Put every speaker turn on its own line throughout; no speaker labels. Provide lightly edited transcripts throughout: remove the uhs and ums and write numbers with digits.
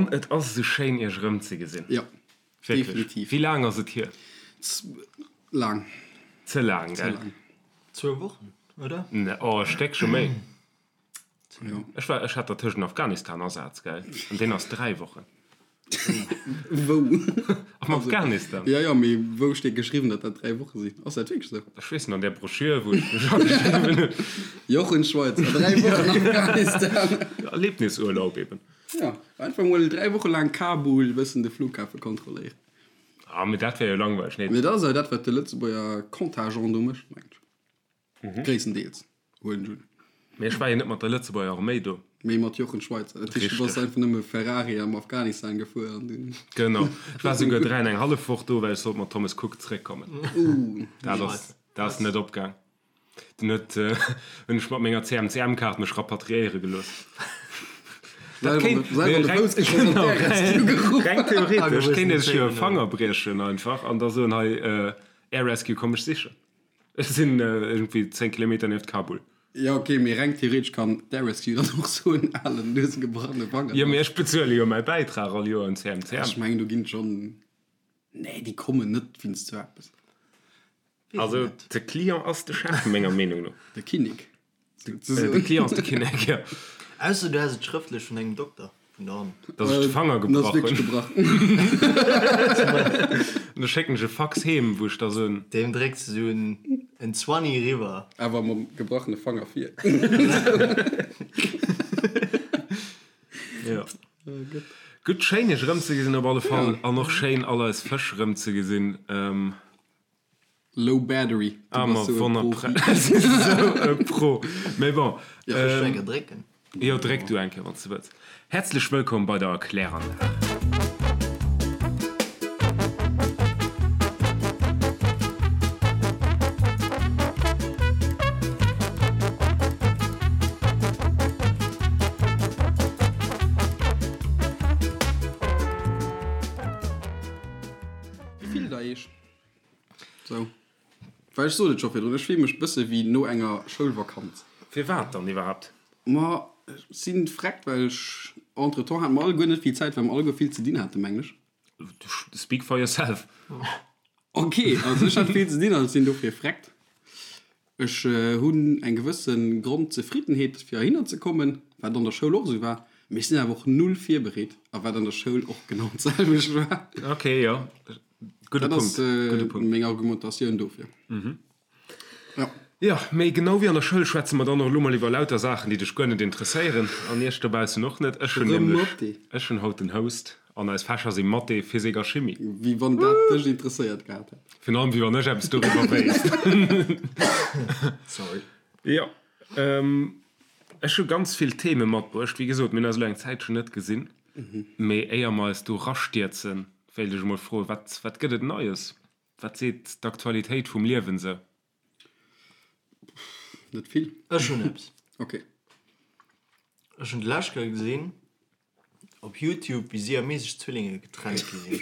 An et ass esou schéin iech erëmzegesinn.
Jo,
Wierklech.
definitiv.
Wéi laang ass et hier?
Laang.
Ze laang,
Ze
gell?
laang.
Zwou Wochen, oder?
Ne, oh, e Stéckche méi.
Jo.
Ech war, ech hat dertëschent Afghanistan-Asaz, gell? An deen ass 3 Wochen.
Wou?
Am Afghanistan.
Jo, jo, mee wou steet geschriwwen, datt dat 3 Woche sinn? Ass dat wierklech esou?
Ech weess net, an där Broschür, wou ech mech ageschriwwen hunn.
Jochen Schweizer, 3 Wochen Afghanistan.
Erlebnisurlaub eben.
Jo, einfach mol 3 Woche laang Kabul, bëssen de Flughafe kontrolléieren.
Ah, mee dat wär jo langweileg, nee?
Mee dat ass jo dat, wat de Lëtzebuerger Contingent do mécht, mengen ech. Gréisstendeels, huelen ech un.
Mee ech war jo net mat der Lëtzebuerger Arméi do.
Mee mat Jochen Schweizer. Dat heescht, du bass
Richteg.
einfach nëmme Ferrari am Afghanistan gefuer an dunn.
Genau. Ech war souguer 3 an eng hallef Woch do, well ech sollt mat Thomas Cook zeréckkommen. Dat ass, dat ass net opgaang. Dunn huet, hunn ech mat menger CMCM-Kaart mech rapatriéiere gelooss. Dat kéint,
Selwer an de Fouss geschoss an
genau,
d'Air Rescue geruff.
reng theoretesch kéint ee sech jo e
Agewissen
Fanger briechen einfach an da soen, hei, Air Rescue, komm mech sichen. Ech sinn iergendwéi 10 Kilometer nieft Kabul.
Jo ok, mee reng theoretesch kann d'Air Rescue dann och soen, alen, du hues e gebrachene Fanger.
Jo, mee ech bezuele jo mäi Bäitrag all Joer un CMCM.
Ech mengen do ginn et schonn, nee déi kommen net wéinst sou eppes.
Also de Client ass de Chef, menger Meenung no.
De Kinnek.
De Client ass de Kinnek, jo.
Ausser du häss et schrëftlech vun engem Dokter vun der Hand.
Dass ech de Fanger
En ass
gebrach
wierklech
hunn.
gebrach.
An da schécken ech e Fax heem, wou ech da soen.
Deem drécks de sou en Zwanni eriwwer.
Awer mam gebrachene Fanger vir.
Jo. Gutt, schéin iech erëmzegesinn op alle Fall. An och schéin all eis Fësch erëmzegesinn.
Low battery.
Ah, ma wonnerpre. Esou e Pro. Mee bon.
Soll ech eng Kéier drécken?
Jo, dréck du eng Kéier, wann s de wëlls. Häerzlech wëllkomm bei der Kläranlag.
Wéi fillt der iech? Sou. Well ech sot et scho virdrun, ech fille mech bësse wéi no enger Schoulvakanz.
Firwat dann iwwerhaapt?
Ma ech si vreckt, well ech entretemps hate mer alleguer net vill Zäit, well mer alleguer vill ze dinn haten, mengen ech.
Speak for yourself.
Ok, also ech hat vill ze dinn an ech sinn dofir vreckt. Ech hunn eng gewësse Grondzefriddenheet fir heihinner ze kommen, wat an der Schoul och esou war, mee ech sinn awer och null virbereet a wat an der Schoul och genau d'selwecht war.
Ok, jo, gudde
Dat ass
Punkt, gudde Punkt.
meng Argumentatioun dofir. Jo.
Jo, mee genau wéi an der Schoul schwätze mer dann och elo mol iwwer lauter Saachen, déi dech guer net interesséieren an iech dobaussen och net. Ech hunn
Erëm
nämlech,
Mathé.
ech hunn haut den Host an eis Fächer si Mathé, Physik a Chimie.
Wéi wann dat dech interesséiert gehat hätt.
Virun allem wéi wann ech eppes doriwwer wéisst.
Sorry.
Jo, ech hu ganz vill Theme matbruecht. Wéi gesot, mir hunn eis elo eng Zäitchen net gesinn. Mee éier mer eis do rastierzen, wéilt ech emol froen, wat, wat gëtt et Neies? Wat seet d'Aktualitéit vum Liewen sou?
Net vill.
Ech hunn eppes.
Ok.
Ech hunn d'lescht Kéier gesinn op Youtube, wéi siamesesch Zwillinge getrennt gi sinn.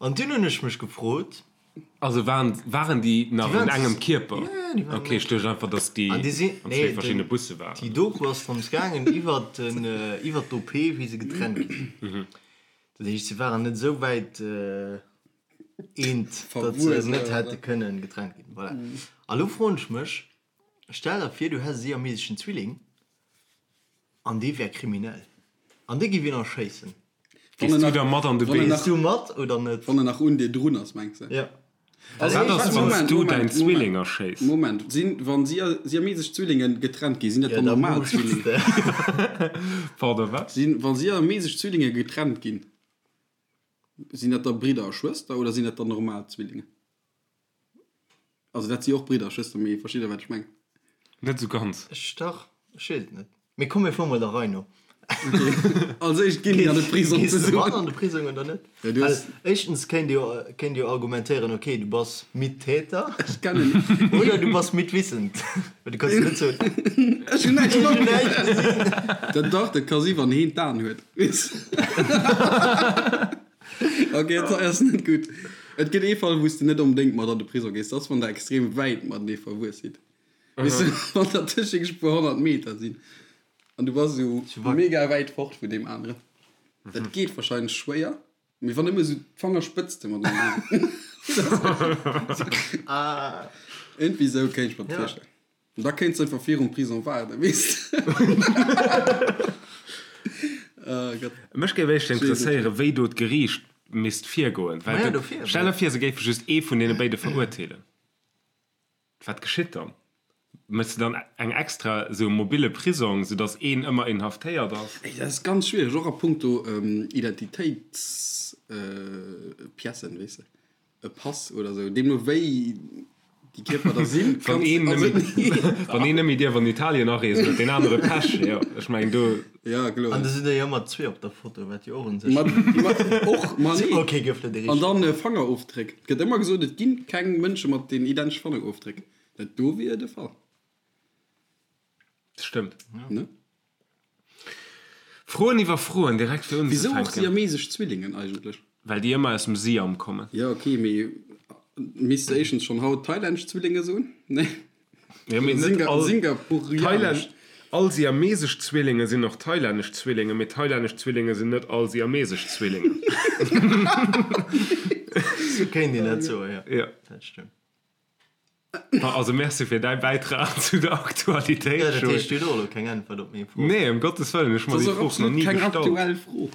An dunn hunn ech mech gefrot.
Also waren, waren déi nach
Déi
an
waren
engem Kierper?
Ja, ja, déi waren
Ok, ech duecht einfach, dass déi
An déi sinn,
an zwee
nee,
verschiddene
den,
Busse waren.
déi Doku ass drëms gaangen iwwert den, iwwert d'OP, wéi se getrennt gi sinn. Dat heescht, se waren net esou wäit eent, datt se net hätte kënnen getrennt ginn. Voilà. A lo froen ech mech, Stell der vir, du häss e siameseschen Zwilling an dee wär kriminell an dee giff een erschéissen.
Gees du da mat an de Bee?
Gees du mat oder net?
Wann en nach un dir drun ass, mengs de?
Jo.
Wat ass, wann s du däin Zwilling erschéiss?
Moment, sinn, wa siamesesch Zwillinge getrennt ginn, sinn dat dann normal Zwillinge?
Pardon, wat?
Sinn, wa siamesesch Zwillinge getrennt ginn, sinn dat da Bridder a Schwëster oder sinn dat dann normal Zwillinge? Also dat si och Bridder a Schwëster, mee versteet der wat ech mengen?
Net esou ganz.
Ech dach, ech weess et net. Mee komm mir fuere mol der Rei no.
Als éischt ginn déi an de Prisong
Gees de
zesummen.
mat an de Prisong oder net?
Ja, du
Well
hues.
éischtens kéint jo, kéint jo argumentéieren, okay, du bass Mittäter.
Ech kennen.
Oder du bass mitwissend. Well du kanns jo net soen.
Ech hunn näischt
Ech hunn
matgemaach.
näischt gesinn.
Dat dach, dat ka si wann heen d'Aen huet. Weess. Ok, dat ass net gutt. Et gëtt ee Fall, wou s de net onbedéngt mat an de Prisong gees, dat ass, wann der extrem wäit matenee verwuess sidd. Weess de, wann der tëscht e puer 100 Meter sinn. An du bass esou mega wäit fort vun deem aneren. Dat geet wahrscheinlech schwéier, mee wann nëmme esou d'Fangerspëtzte mateneen. Iergendwéi esou kéint ech mer dat virstellen. An da kéints de einfach virum Prison waarden, weess de. Oh Gott.
Mech géif éischter interesséieren, wéi do d'Geriicht misst virgoen. Well stell der vir, se géife just ee vun deene béide verurteelen. Wat geschitt dann? Méchs de dann eng extra esou mobile Prisong, sou datt een ëmmer inhaftéiert ass?
Ey, dat ass ganz schwiereg, och a punkto Identitéitspiècen, weess de, e Pass oder esou, deemno wéi déi Kierper da sinn,
Wann een nëmme, wann een nëmme dierf an Italien areesen, huet deen anere Pech, jo, ech mengen do.
Ja, kloer.
An da sinn der jo ëmmer zwee op der Foto, wat jo och un sech.
Ma, ma och, ma nee.
Ok, gouf net
An dann Fangerofdréck. Et gëtt ëmmer gesot, et ginn keng Mënsche mat den identesche Fangerofdréck. Dat do wier de Fall.
Dat stëmmt.
Ne?
Froen iwwer Froen, direkt fir
Wisou och
unzefänken.
siamesesch Zwillingen eigentlech?
Well déi ëmmer aus dem Siam kommen.
Ja, ok, mee misst de éischtens schonn haut thailännesch Zwillinge soen? Nee.
Ja, mee net all
Singapurianesch.
Thailand, all siamesesch Zwillinge sinn och thailännesch Zwillinge, mee thailännesch Zwillinge sinn net all siamesesch Zwillinge.
Sou kéint een dat soen, jo.
Ja.
Dat stëmmt.
Also merci fir däi Bäitrag zu der Aktualitéit,
Ja, dat
Joé.
heescht, du hues och elo keng Äntwert op meng Fro.
Nee, ëm Gottes Wëllen, ech hu mer
Dat
déi
ass och
Fro nach
absolut
ni
keng
gestallt.
aktuell Fro.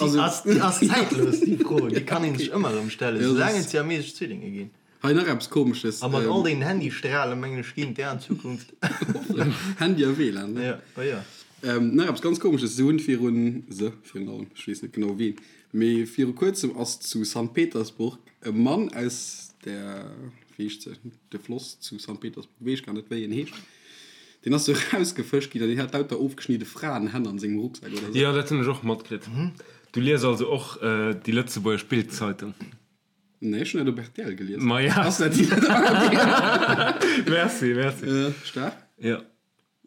Déi ass, déi ass zäitlos, déi Fro. Déi kann ee sech ëmmer erëm stellen,
Ja,
soulaang
dat
et
ass-
siamesesch Zwillinge ginn.
Hei nach eppes Komesches.
A mat all deenen Handystrahlen, mengen ech, ginn d'är an Zukunft.
Handy a WLAN, ne?
Ja, oh ja.
Nach eppes ganz Komesches, Se hunn virun, se virun allem, ech weess net genau wien, mee viru kuerzem ass zu Sankt Petersburg e Mann aus der, wéi heescht se, de Floss zu Sankt Petersburg, weess ech gar net wéi en heescht, deen ass do erausgefëscht ginn an deen hat lauter ofgeschnidde Fraenhänn an sengem Rucksak oder sou.
Jo, dat hunn ech och matkritt. Du lies also och déi lëtzebuergesch Bild-Zeitung?
Nee, ech hunn dat op rtl gelies.
Maja.
Ass dat déi?
Merci, merci.
Staark.
Jo.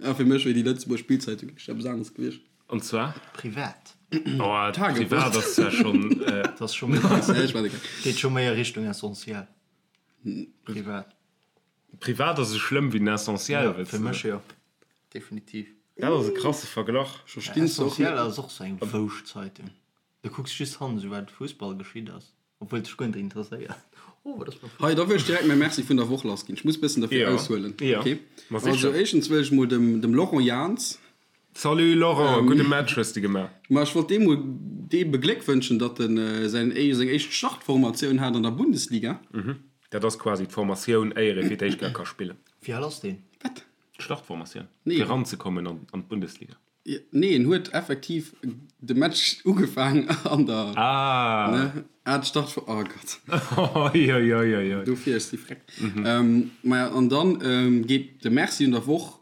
A fir mech wier déi Lëtzebuerg Bildzeitung echt eppes aneres gewiescht.
An zwar?
Privat.
Oh, privat ass zwar schonn.
Dat ass scho méi. Geet scho méi a Richtung Essentiel. Privat.
Privat ass esou schlëmm wéi den Essentiel,
Ja, fir mech jo. Definitiv.
Dat ass e krasse Verglach.
Essentiel ass och sou eng Wouschtzeitung. Du kucks just hannen, sou wat Fussball geschitt ass. Obwuel dech guer net interesséiert. Oh, wat ass mat
Hei, da wëll ech direkt mäi Merci vun der Woch lassginn. Ech muss bëssen derfir
Jo,
aushuelen.
jo,
Okay.
ma sicher.
Also éischtens wëll ech mol dem, dem Laurent Jans,
Salut Laurent, gudde Match hues de gemaach.
Ma ech wollt deem mol dee begléckwënschen, datt en säin, seng éischt Startformatioun hat an der Bundesliga.
Dat ass quasi d'Formatioun, éier ee fir d'éischt Kéier ka spillen.
Wéi al ass deen?
Wat?
D'Startformatioun,
Nee.
fir eranzekommen an d'Bundesliga.
Nee, en huet effektiv de Match ugefaang an der.
Ah!
Ne? Ah, d'Start vu. Oh Gott.
Oi, oi, oi, oi, oi.
Dofir, ech si freck. Mhm. Maja, an dann ähm, geet de Merci un der Woch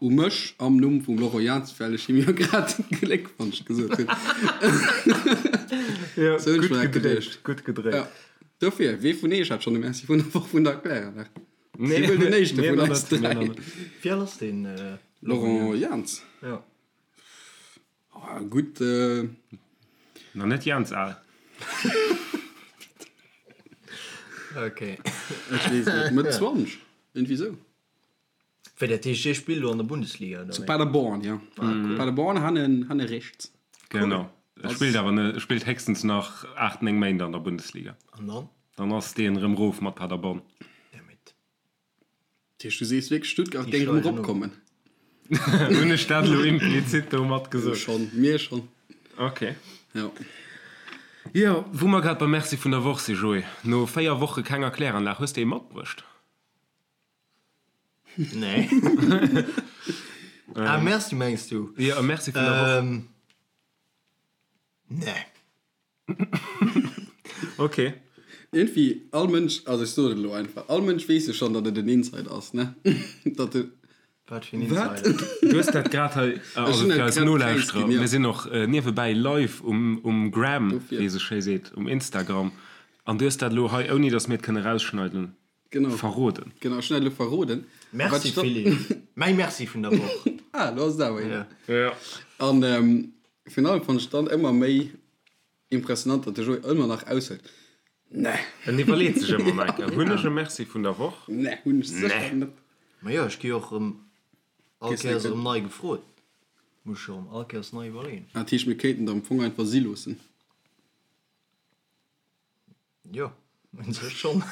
u mech am Numm vum Laurent Jans, well ech him jo grad Gléckwonsch gesot hunn.
Ja,
Sou hunn ech
gutt
mer dat
gedréit,
geduecht.
gutt gedréit.
Ja. Dofir, wee vun eech hat schonn de Merci vun der Woch vun der Kläranlag?
Nee,
Wee wuel den éischte
mir
vun
nach
eis
net, mir nach
dräi?
net.
Wéi al ass deen
Laurent Jans?
Ja.
Oh, gutt. Äh...
Nach net Jans al.
Okay.
Ech weess net, Mëtt 20, irgendwie sou.
Wéi dat heescht, dee spillt elo an der Bundesliga, oder
Zu
wéi?
Paderborn, ja. Ah, cool. Paderborn hanne, hanne rechts.
Genau. E spillt awer net, e spillt héchstens nach 8, 9 Méint an der Bundesliga.
An dann?
Dann ass deen erëm rof mat Paderborn.
Dammit.
Dat heescht, du sees wierklech, Stuttgart
Déi
géing erëm
steigen of.
eropkommen?
Hunn ech dat elo implizit domat gesot?
Schonn, mir schonn.
Ok.
Jo.
Jo, wou mer grad beim Merci vun der Woch si, Joé, no 4 Woche kenger Kläranlag, hues de ee matbruecht?
Nee. Ah, Merci mengs du?
Jo, e Merci vun der Woch.
Ähm, nee.
Ok.
Iergendwéi, all Mënsch, also ech soen et elo einfach, all Mënsch weess jo schonn, datt et en Insider ass, ne? Datt e.
Wat fir en
Wat?
Insider?
Du hues dat grad hei, also
hunn
fir
dat
eis
grad
Nolauschterer,
preisginn, ja.
mir sinn och niewebäi live um, um Gram,
Dofir.
wéi ee sou schéi seet, um Instagram, an du hues dat elo hei, ouni datt mir et kënne rausschneiden,
Genau.
verroden.
Genau, ech hunn dat elo verroden. A wat
Merci
ech dann.
Philippe. Mäi Merci vun der Woch.
Ah, elo ass et awer een.
Ja.
Ja.
An virun allem fannt ech dann ëmmer méi impressionant, datt de Joé ëmmer nach aushëlt, Nee.
En iwwerleet sech ëmmer nach eng Kéier, Hunn ech e Merci vun der Woch?
Nee, hunn ech sécher net.
Ma jo, ech gi och erëm all
Kriss
Kéiers
net
erëm nei gefrot. Muss ech erëm all Kéiers nei iwwerleeën.
Dat heescht, mir kéinten der am Fong einfach si loossen.
Jo, un sech schonn.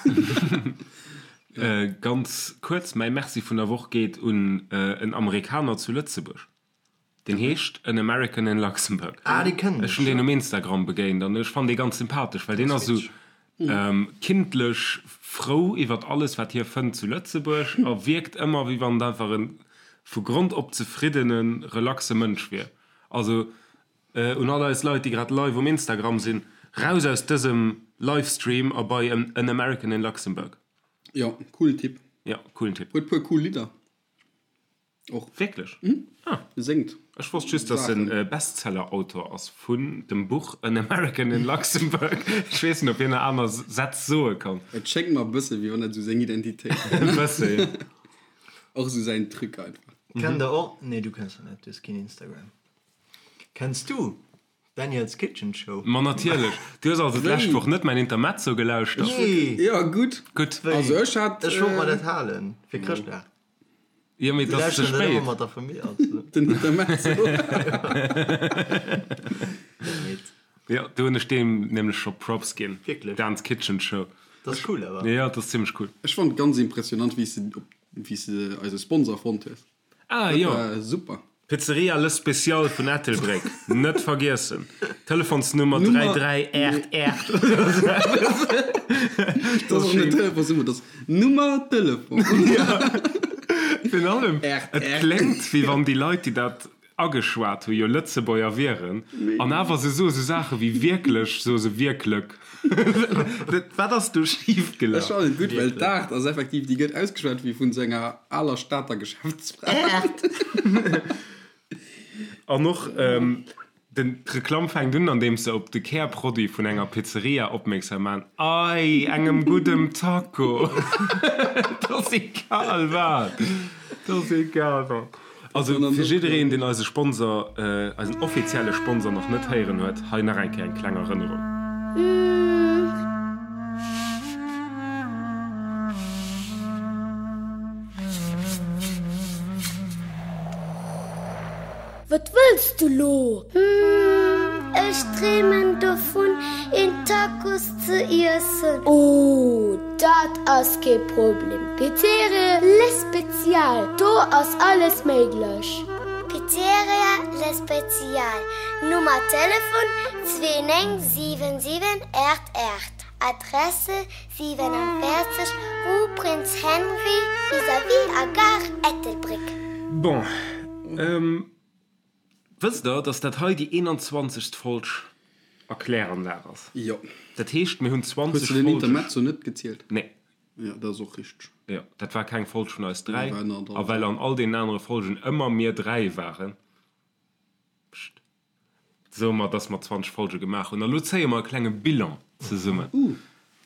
Ganz kuerz, mäi Merci vun der Woch geet un en Amerikaner zu Lëtzebuerg. Deen heescht An American in Luxembourg.
Ah, dee kennen
ech. Ech hunn deen um Instagram begéint an ech fannen dee ganz sympathesch, well deen ass esou kindlech frou iwwert alles, wat hie fënnt zu Lëtzebuerg a wierkt ëmmer, wéi wann et einfach e vu Grond op zefriddene, relaxe Mënsch wier. Also un all eis Leit, déi grad live um Instagram sinn, raus aus dësem Livestream a bei An American in Luxembourg.
Jo, coolen Typ.
Jo, coolen Typ.
Huet puer cool Lidder. Och.
Wierklech?
Mhm. Ah. Séngt.
Ech wosst just, dass en Bestseller-Autor ass vun dem Buch An American in Luxembourg. Ech weess net, ob hien nach aner Sätz soe kann.
Et schéngt mer e bësse wéi wann dat esou seng Identitéit
wär. E bësse, jo.
Och esou säin Truc einfach.
Kennt der och, nee du kenns se net, du hues keen Instagram. Kenns du Daniel's Kitchen Show?
Ma natierlech. Du hues also d'lescht Woch net mäin Intermezzo gelauschtert?
Nee.
Jo, gutt.
Gutt.
Also ech hat.
Ech wollt mer dat halen fir Chrëschtdag.
Jo, mee et ass ze spéit.
Mat der Famill, also.
Den Intermezzo.
Jo, do hunn ech deem nämlech scho Props ginn.
Wierklech?
Dan's Kitchen Show.
Dat ass cool awer.
Jo, dat ass zimmlech cool.
Ech fonnt ganz impressionant, wéi s de op, wéi s de eise Sponsor fonnt hues.
Ah, jo.
Dat war super.
Pizzeria Le Special vun Ettelbréck, net vergiessen. Telefonsnummer 3388.
Dat ass och net Telefonsnummer, dat ass Nummer Telefon.
Virun allem, et kléngt, wéi wann déi Leit, déi dat ageschwat hu jo Lëtzebuerger wieren, an awer se soe sou Saache wéi wierklech, soe se wierklek. Wat ass do schif gelaf?
Ech fannen et gutt, well d'Aart ass effektiv, déi gëtt ausgeschwat wéi vun sou enger aler Stater Geschäftsfra.
An och den d'Reklamm fänkt un, andeems se op de Kärproduit vun enger Pizzeria opmierksam man, Ei, engem guddem Taco! Et ass egal wat! Et ass egal wat! Also fir jiddereen, deen eise Sponsor, eisen offizielle Sponsor nach net héieren huet, hei nach eng Kéier eng kleng Erënnerung.
Wat wëlls du lo? Hm, ech dreemen dovun, een Tacos ze iessen. Oh, dat ass kee Problem. Pizzeria Le Spezial, do ass alles méiglech. Pizzeria Le Spezial, Nummer Telefon 2977 88, Adresse 47, Rue Prince Henri, vis-à-vis a Gare Ettelbréck.
Bon, wësst der, dass dat hei déi 21. Folg a Kläranlag ass?
Jo.
Dat heescht, mir hunn 20
Hues de den
Folge.
Intermezzo net gezielt?
Nee.
Jo, dat ass och richteg.
Jo, dat war keng Folg vun eis 3.
Nee, war ënnert
A well an all deenen anere Folgen ëmmer mir 3 waren, pscht, soe mer, dass mer 20 Folge gemaach hunn. A lo zéie mer e klenge Bilan zesummen.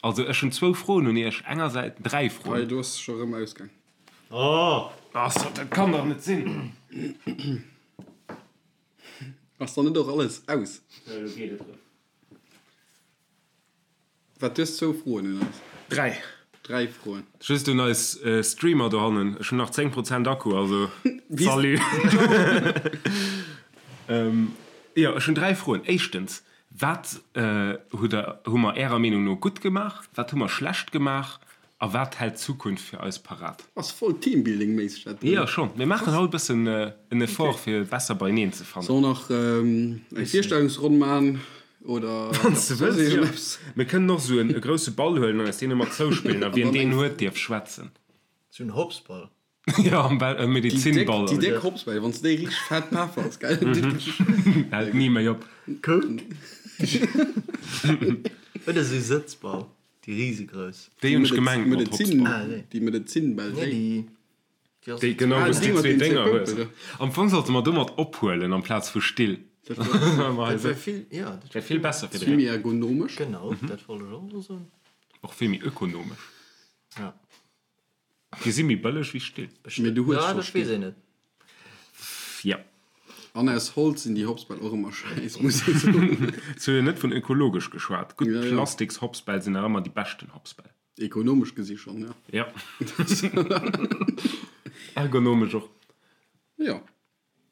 Also, ech hunn zwou Froen un iech. Engersäits, dräi Froen.
Hei, do ass scho rëm ausgaang.
Oh! Ass, dat kann dach net sinn!
Ass dann net och alles aus?
Jo, elo geet et erëm.
Wat, du hues zwou Froen un eis?
Dräi.
Dräi Froen.
Just un eis Streamer dohannen, ech hunn nach 10 Prozent Akku, also salut! Jo, ech hunn dräi Froen. Éischtens, wat hutt der, hu mer Ärer Meenung no gutt gemaach, wat hu mer schlecht gemaach A wat hält d'Zukunft fir eis parat?
Ass voll Teambuilding-méisseg dat do.
Jo schonn, mir maachen haut e bëssen en Effort fir besser beieneen ze fannen.
Soll nach eng Virstellungsronn man oder
Wann s de wëlls, jo. Mir kënnen och esou e grousse Ball huelen an eis deen ëmmer zouspillen a wien deen huet dierf schwätzen.
Sou en Hopsball.
Jo, am Ball, e Medizinball.
Déi déck Hopsbäll, wann s de déi richteg fett peffers, gell?
Hält ni méi op.
Oder sou Sëtzball. Déi risegrouss.
Déi hunn ech gemengt mat Hopsball.
Déi Medezinbäll,
déi.
Déi, genau, wou s déi zwee Dénger hues. Am Fong sollte mer domat ophuelen amplaz vu Still.
Dat wär vill, jo.
Dat wär vill besser fir de
Vill méi ergonomesch.
Genau, dat wollt ech och elo soen.
Och vill méi ökonomesch.
Ja.
Déi si méi bëlleg wéi Still.
Mee du hues
Ja,
scho
dat weess
Still.
een net.
Ja.
An aus Holz sinn déi Hopsbäll och ëmmer schäiss, muss ee soen.
Ech hu jo net vun ökologesch geschwat. Gutt
Ja, ja.
Plastiks-Hopsbäll sinn nach ëmmer déi beschten Hopsbäll.
Ekonomesch gesi schonn, ja.
Ja. Ergonomesch och.
Jo.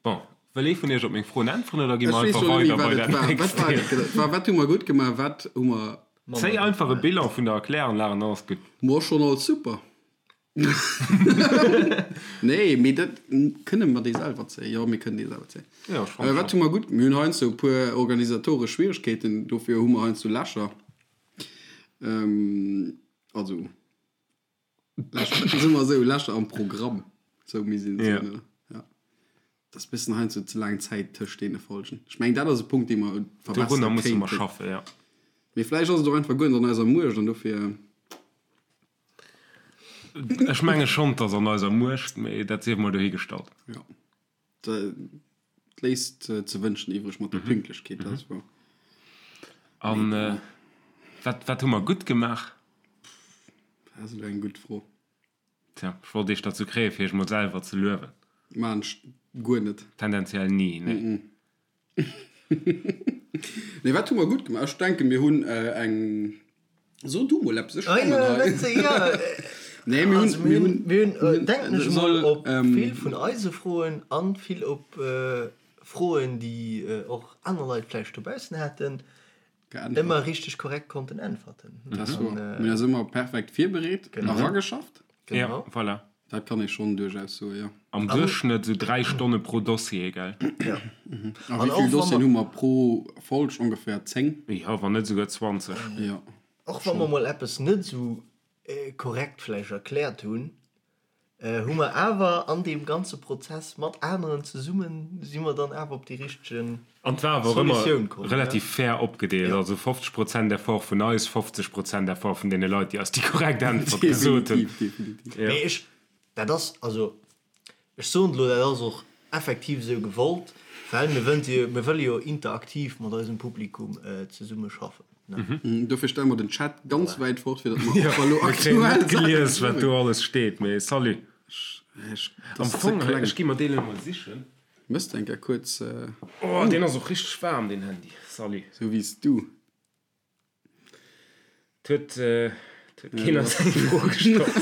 Bon, Wëll ee vun iech op meng Froen äntweren oder gi mer einfach weider bei dat nächst
Thema? Wat hu mer gutt gemaach, wat hu mer.
Zéi einfach e Bilan vun der Erkläranlag an dann ass gutt.
Mor schonn alles super. Nee, mee dat kënne mer déi selwer zéien. Jo, mir kënnen déi selwer zéien.
Jo, ech fannen
Wat hu mer gutt? Mir hunn heiansdo e puer organisatoresch Schwieregkeeten, dofir hu mer heiansdo Lächer. Also. Lächer, soe mer esou, Lächer am Programm, sou misst een et soen, oder? Ja. Dat ass e bëssen heiansdo ze laang Zäit tëscht deene Folgen. Ech mengen, dat ass e Punkt, dee mer
verbessere Dorunner musse mer kéinten. schaffen, ja.
Mee vläicht ass et och einfach guer net an eiser Muecht an dofir.
Ech menge schonn, 't ass an eiser Muecht, mee dat sief mol dohigestallt.
Ja. Dat léisst ze wënschen iwwreg mat der Pünktlechkeet, dat ass wouer.
An wat, wat hu mer gutt gemaach?
Dat ass elo eng gutt Fro.
Tja, ech wollt iech derzou kréien, fir iech mol selwer ze luewen.
Maan ech guer net.
Tendenziell ni, nee.
Nee, wat hu mer gutt gemaach? Ech denken, mir hunn eng. So du mol eppes, ech
kommen hei.
Nee, mir hunn, mir hunn,
mir hunn, denken ech mol, op vill vun eise Froen an vill op Froen, déi och aner Leit vläicht dobaussen haten, ëmmer richteg korrekt konnten äntwerten.
Dat ass wouer. Mir hunn eis ëmmer perfekt virbereet a rageschafft.
Genau. Ja, voilà.
Dat kann ee schonn duerchaus soen, jo.
Am Duerchschnëtt esou 3 Stonne pro Dossier, gell?
Ja.
A wéi vill Dossieren hu mer pro Folg? Ongeféier 10?
Jo, wann net esouguer 20.
Jo.
Och wa mer mol eppes net esou korrekt vläicht erkläert hunn, hu mer awer an deem ganze Prozess mat aneren zesummen, si mer dann awer op déi richtege
An et war awer och ëmmer relativ fair opgedeelt, also 50 Prozent Effort vun eis, 50 Prozent Effort vun deene Leit, déi eis déi korrekt Äntwert gesot hunn.
Definitiv, definitiv.
Mee ech, dat ass, also ech soen et elo, dat ass och effektiv esou gewollt, well mir wënnt jo, mir wëlle jo interaktiv mat eisem Publikum zesumme schaffen,
ne? Dofir stelle mer den Chat ganz wäit fort, fir datt mer och
wa lo aktuell Mir kréien net gelies, wat do alles steet, mee salut.
Ech,
Am Fong, ech gi mer deen elo mol sichen.
Mëss eng Kéier kuerz.
Oh, deen ass och richteg waarm, deen Handy. Salut.
Sou wéi s du.
't huet, 't huet keen eis eng Fro gestallt.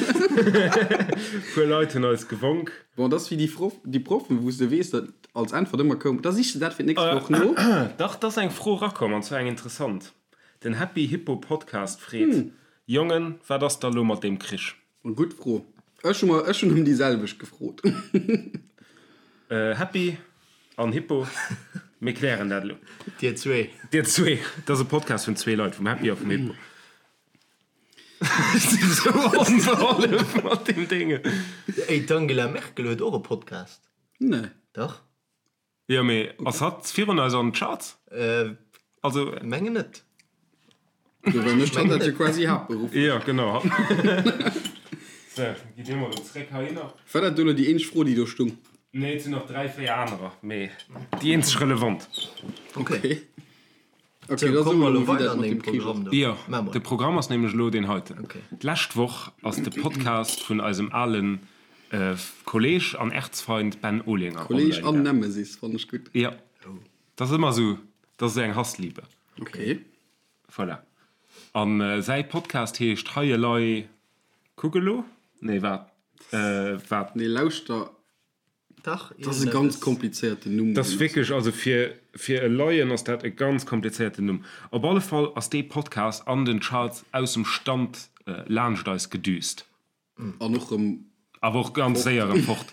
Puer Leit hunn eis gewonk.
Bon, dat ass wéi déi Frof, déi Proffen, wou s de weess, datt als Äntwert ëmmer koum, da sich de dat fir d'nächst Woch no.
Dach, 't ass eng Fro erakomm, an zwar eng interessant. Den Happy Hippo Podcast freet, Jongen, wat ass da lo mat deem Krich?
Gutt Fro. Ech hu mer, ech hunn ëm déi selwecht gefrot.
Happy an Hippo, mir klären dat elo.
Dir zwee.
Dir zwee. Dat ass e Podcast vun zwee Leit, vum Happy a vum Hippo. Ech sinn esou onbehollef mat deem Dénge.
Ey, d'Angela Merkel huet och e Podcast.
Nee.
Dach.
Jo, mee ass hatt virun eis an d'Charts?
Also. Mengen net.
Jo, well mécht hatt dat jo quasi haaptberufflech.
Jo, genau. Sou, gi dir mol erëm zréck heihinner.
War dat do elo déi eenzeg Fro, déi do stung?
Nee, et sinn nach 3, 4 anerer, mee déi eenzeg relevant.
Okay. Okay, da soe mer elo, wéi dat mat dem Krich ass.
Jo, de Programm ass nämlech elo deen heiten. D'lescht Woch ass de Podcast vun eisem alen Kolleg an Erzfeind Ben Olinger
online Kolleg an Nemesis, fannen ech gutt.
Jo, dat ass ëmmer esou, dat ass esou eng Hassliebe.
Okay.
Voilà. A säi Podcast heescht Hei elei kuck elo? Nee, wat? Wat?
Nee, lauschter.
Dach,
Dat ass e ganz komplizéierten Numm.
Dat ass wierklech, also fir, fir e Laien ass dat e ganz komplizéierten Numm. Op alle Fall ass dee Podcast an den Charts aus dem Stand laanscht eis gedüst.
An och rëm.
Awer och ganz séier erëm fort.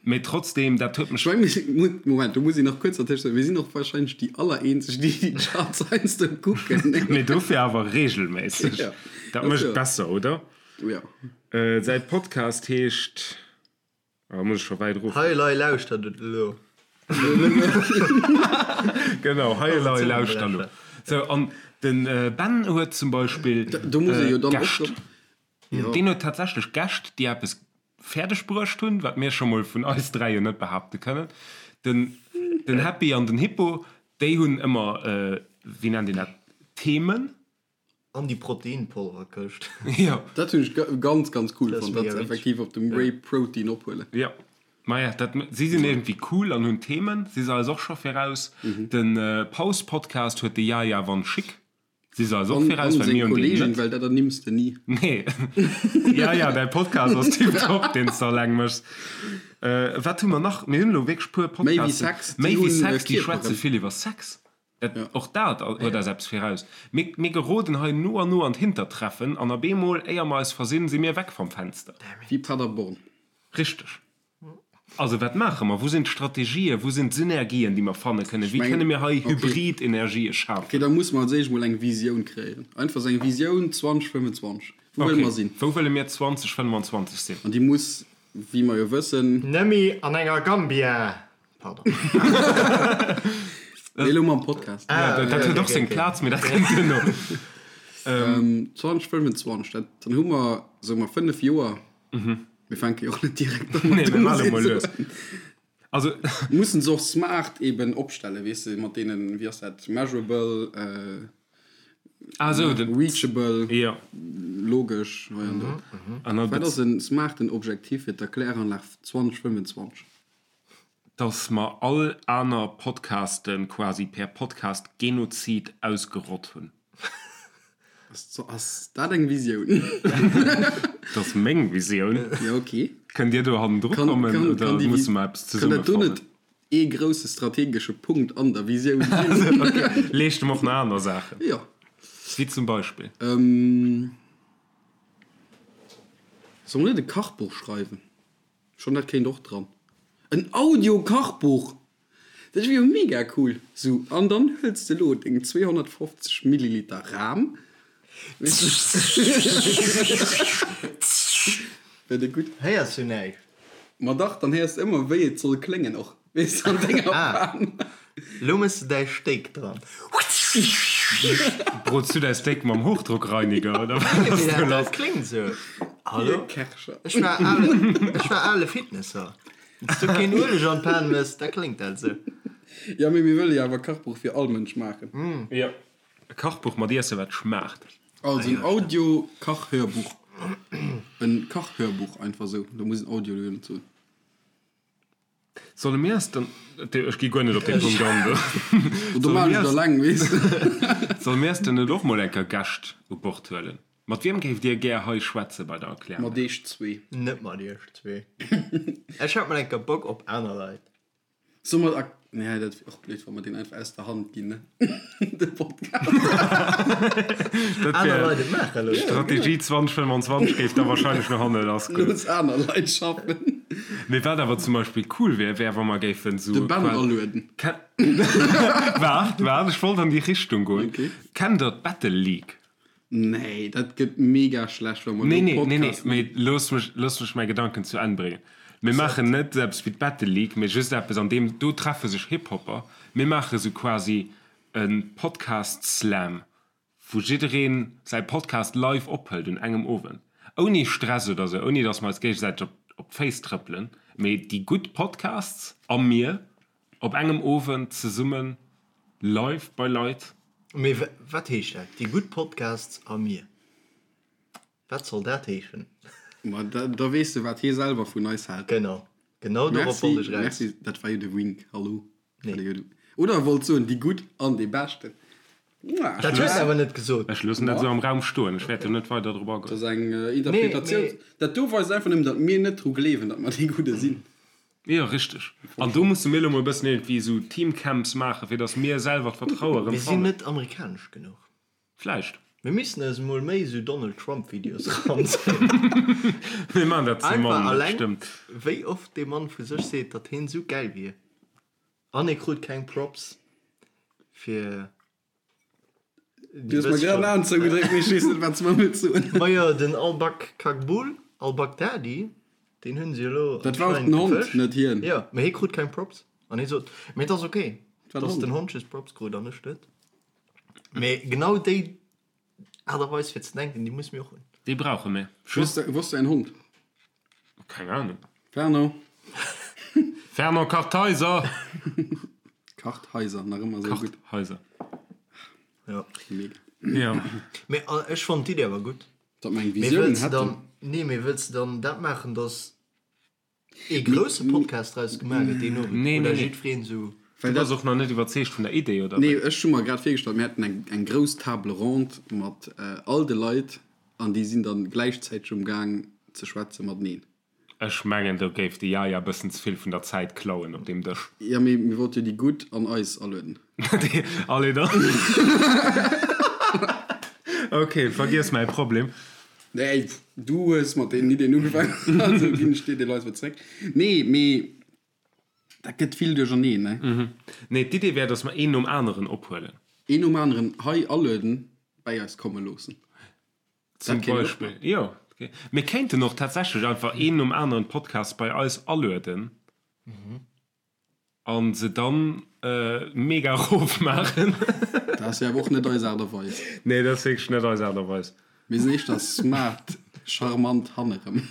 Mee trotzdem, dat huet mech.
Ech meng, mir sinn, Moment, do muss een nach kuerz dertëscht soen, mir sinn och wahrscheinlech déi allereenzeg, déi déi Charts heiansdo kucken.
Mee dofir awer regelméisseg.
Ja.
Dat mécht et besser, oder?
Ja.
Säi Podcast heescht. Ah, muss ech scho wäit erof.
Hei elei lauschtert et elo.
Genau, hei elei lauschtert elo. Sou, an den Ben huet zum Beispill
Do muss ee jo dann och
Gäscht. Deen huet tatsächlech Gäscht, déi eppes fäerdeg bruecht hunn, wat mir scho mol vun eis 3 jo net behaapte kënnen. Den, den Happy an den Hippo, déi hunn ëmmer, wéi nennt een dat, Themen.
An déi Proteinpolverkëscht.
Jo.
Dat hunn ech ganz ganz cool
Dat ass
fonnt, dat
mega
se
witzeg.
effektiv op dem Whey Protein ophuelen.
Jo. Maja, dat, si sinn iergendwéi cool an hunn Themen. Si se eis och scho viraus. De Paus-Podcast huet de Yaya Van Schick. Si se eis och viraus, well mir hunn deen net.
Well dat ernimms de ni.
Nee. Ja, ja, däi Podcast ass tiptop, deen s de alleng méchs. Wat hu mer nach? Mir hunn elo wierklech puer Podcasten.
Méi wéi Sex.
Méi wéi Sex, déi schwätze vill iwwer Sex. Dat, och dat huet eis eppes viraus. Mir, mir geroden hei no an no an d'Hintertreffen an op eemol, éier mer eis versinn, si mir weg vom Fenster.
Wéi Paderborn.
Richteg. Also, wat maache mer? Wou sinn d'Strategien? Wou sinn d'Synergien, déi mer fanne kënnen? Wéi kënne mir hei Hybrid-Energië schafen?
Ok, da musse mer als éischt mol eng Visioun kreéieren. Einfach esou eng Visioun 2025. Wou wëlle mer sinn?
Ok, wou wëlle mir 2025 sinn?
An déi muss, wéi mer jo wëssen.
Nëmme an enger Gambia! Pardon.
Nee, elo mam Podcast.
Ah, dat huet och seng Plaz, mee dat kënnt duerno.
2025, dat, dann hu mer, soe mer, 5 Joer. Mir fänke jo och net direkt an.
Nee, mir maache mol lues. Also.
Mussen se och smart eben opstellen, weess de, mat deenen, wéi ass dat, measurable,
ah, so, den,
reachable,
ja.
logesch, hei an do.
An dann
Wat ass en smarten Objektiv fir d'Erkläranlag 2025?
Dass mer all aner Podcaste quasi per Podcast-Genozid ausgerott hunn.
Ass dat eng Visioun?
Dat ass meng Visioun.
Jo, ok.
Kënnt Dir do hannendru kommen oder musse mer eppes
zesumme fannen? Kann dat do net ee grousse strategesche Punkt an der Visioun
sinn? Ok, leescht em och nach aner Saachen.
Jo.
Wéi zum Beispill?
Solle mer net e Kachbuch schreiwen? Schonn dat kéint och dran. En Audio-Kachbuch! Dat wier jo mega cool! Sou, an dann huels de lo deng 250 Milliliter Ram. Wär dat gutt?
Héiers du näischt?
Ma dach, dann héiers de ëmmer wéi et soll kléngen och, weess de, an denger
Pan. Lo mëss de däi Steak dran.
Brots du däi Steak mam Hochdruckreiniger oder wat ass do lass?
Dat kléngt sou. Hallo?
Kercher.
Ech war ale, ech war ale Fitnesser. Wann s du keen Ueleg an d'Pan mëss, da kléngt dat esou.
Jo, mee mir wëlle jo awer e Kachbuch fir all Mënsch maachen.
Jo, e Kachbuch mat Iesse wat schmaacht.
Also en Audio-Kachhörbuch. En Kachhörbuch einfach esou, do muss en Audio jo net soen.
Solle mir eis dann, ech gi guer net op dee Punkt an do.
Do maan ech et alleng, weess de.
Solle mir eis dann net och mol eng Kéier Gäscht u Bord huelen? Mat wiem géift Dir gär hei schwätze bei der Erklärung?
Mat iech zwee.
Net mat iech zwee. Ech hätt mol eng Kéier Bock op aner Leit.
Soll mer ak nee dat wier och blöd wa mer deen einfach aus der Hand ginn ne de Podcast.
Dat
Aner
wär
Leit et maache loossen.
Strategie 2025 géif da wahrscheinlech no hanne lass goen.
Looss aner Leit schaffen.
Mee wat awer zum Beispill cool wär, wär wa mer géifen
De
sou
Ben
qual
alueden.
Ken Waart, waart, ech wollt an déi Richtung goen.
Okay.
Kennt der d'Battle League?
Nee, dat gëtt mega schlecht, wa mer
Nee,
do
nee, nee, nee,
Podcast.
mee looss mech, looss mech mäi Gedanken zu Enn bréngen. Mir maachen net esou eppes wéi d'Battle League, mee just eppes, an deem, do treffe sech Hip-Hopper. Mir maache sou quasi e Podcast-Slam, wou jidderee säi Podcast live ophëlt un engem Owend. Ouni Stress oder sou, ouni datt mer eis géigesäiteg op, op d'Féiss trëppelen, mee déi gutt Podcasts a mir op engem Owend zesummen live bei Leit.
Mee wat heescht dat, déi gutt Podcasts a mir? Wat soll dat heeschen?
Ma da weess de, wat hie selwer vun eis hält.
Genau, genau dorop wollt ech eraus.
Merci, dat war jo de Wink, hallo.
Nee.
Oder e wollt soen, déi gutt an déi beschten.
Dat hues de awer net gesot.
Ech loossen dat esou am Raum stoen, ech wäert do net weider drop agoen.
Dat ass eng Interpretatioun. Dat do weist einfach nëmmen, datt mir net dru gleewen, datt mer déi Gudde sinn.
Jo, richteg. An do musse mir elo mol e bëssen iergendwéi esou Teamcamps maachen, fir datt mir selwer d'Vertraue erëm
Mir sinn
fannen.
net amerikanesch genuch.
Vläicht.
Mir missten eis emol méi esou Donald Trump Videos eranzéien.
Mir maachen dat ze
Einfach
mann, dat
alleng
stëmmt.
wéi oft dee Mann vu sech seet, datt heen esou gäil wier. An e krut keng Props fir.
Du hues mer grad en Aen zougedréckt, mee ech weess net, wat s de mer wëlls soen.
Majo, den Al-Bak-Kagbul, Al-Baghdadi, deen hunn se elo
Dat war och den
anscheinend
Hond,
gefëscht.
net hien.
Jo, mee hie krut keng Props. An hie sot, mee et ass ok,
war den
dass
Hond.
den Hond just Props krut an ech net. Mee genau déi Aart a Weis fir ze denken, déi musse mir och hunn.
Déi brauche mir.
Wou ass wou ass däin Hond?
Keng Ahnung.
Fernand.
Fernand Kartheiser!
Kartheiser, nach ëmmer esou gutt.
Kartheiser.
Jo.
Mega.
Jo.
Mee ech fonnt d'Iddi awer gutt.
Datt mer eng
Mee
Visioun
wëlls de
hätten.
dann, nee, mee wëlls de dann dat maachen, dass ee grousse Podcast draus gemaach gëtt deen Owend?
Nee,
Oder
nee, nee.
jiddwereen esou.
Well
Du bass och nach net iwwerzeegt vun der Idee, oder
Nee, wéi? ech hu mer grad virgestallt, mir hätten eng, eng grouss Table ronde mat all de Leit an déi sinn dann gläichzäiteg um Gaang ze schwätze mateneen.
Ech mengen, do géif de Yaya bëssen ze vill vun der Zäit klauen op deem Dësch.
Jo, mee mir wollte jo déi Gutt an eis alueden.
Allez dann. Ok, vergiess mäi Problem.
Nee, du hues mat deenen Iddien ugefaangen, also ginn ech dir déi Leit erëm zréck. Nee, mee dat gëtt vill duercherneen, ne?
Nee, d'Idee wär, dass mer een nom aneren ophuelen.
Een nom aneren hei alueden, bäi eis komme loossen.
Zum Beispill, jo. Mir kéinten och tatsächlech einfach een nom aneren Podcast bei eis alueden a se dann mega erof maachen.
Dat ass jo awer och net eis Aart a Weis.
Nee, dat ass wierklech net eis Aart a Weis.
Mir sinn éischter smart, charmant hannerem.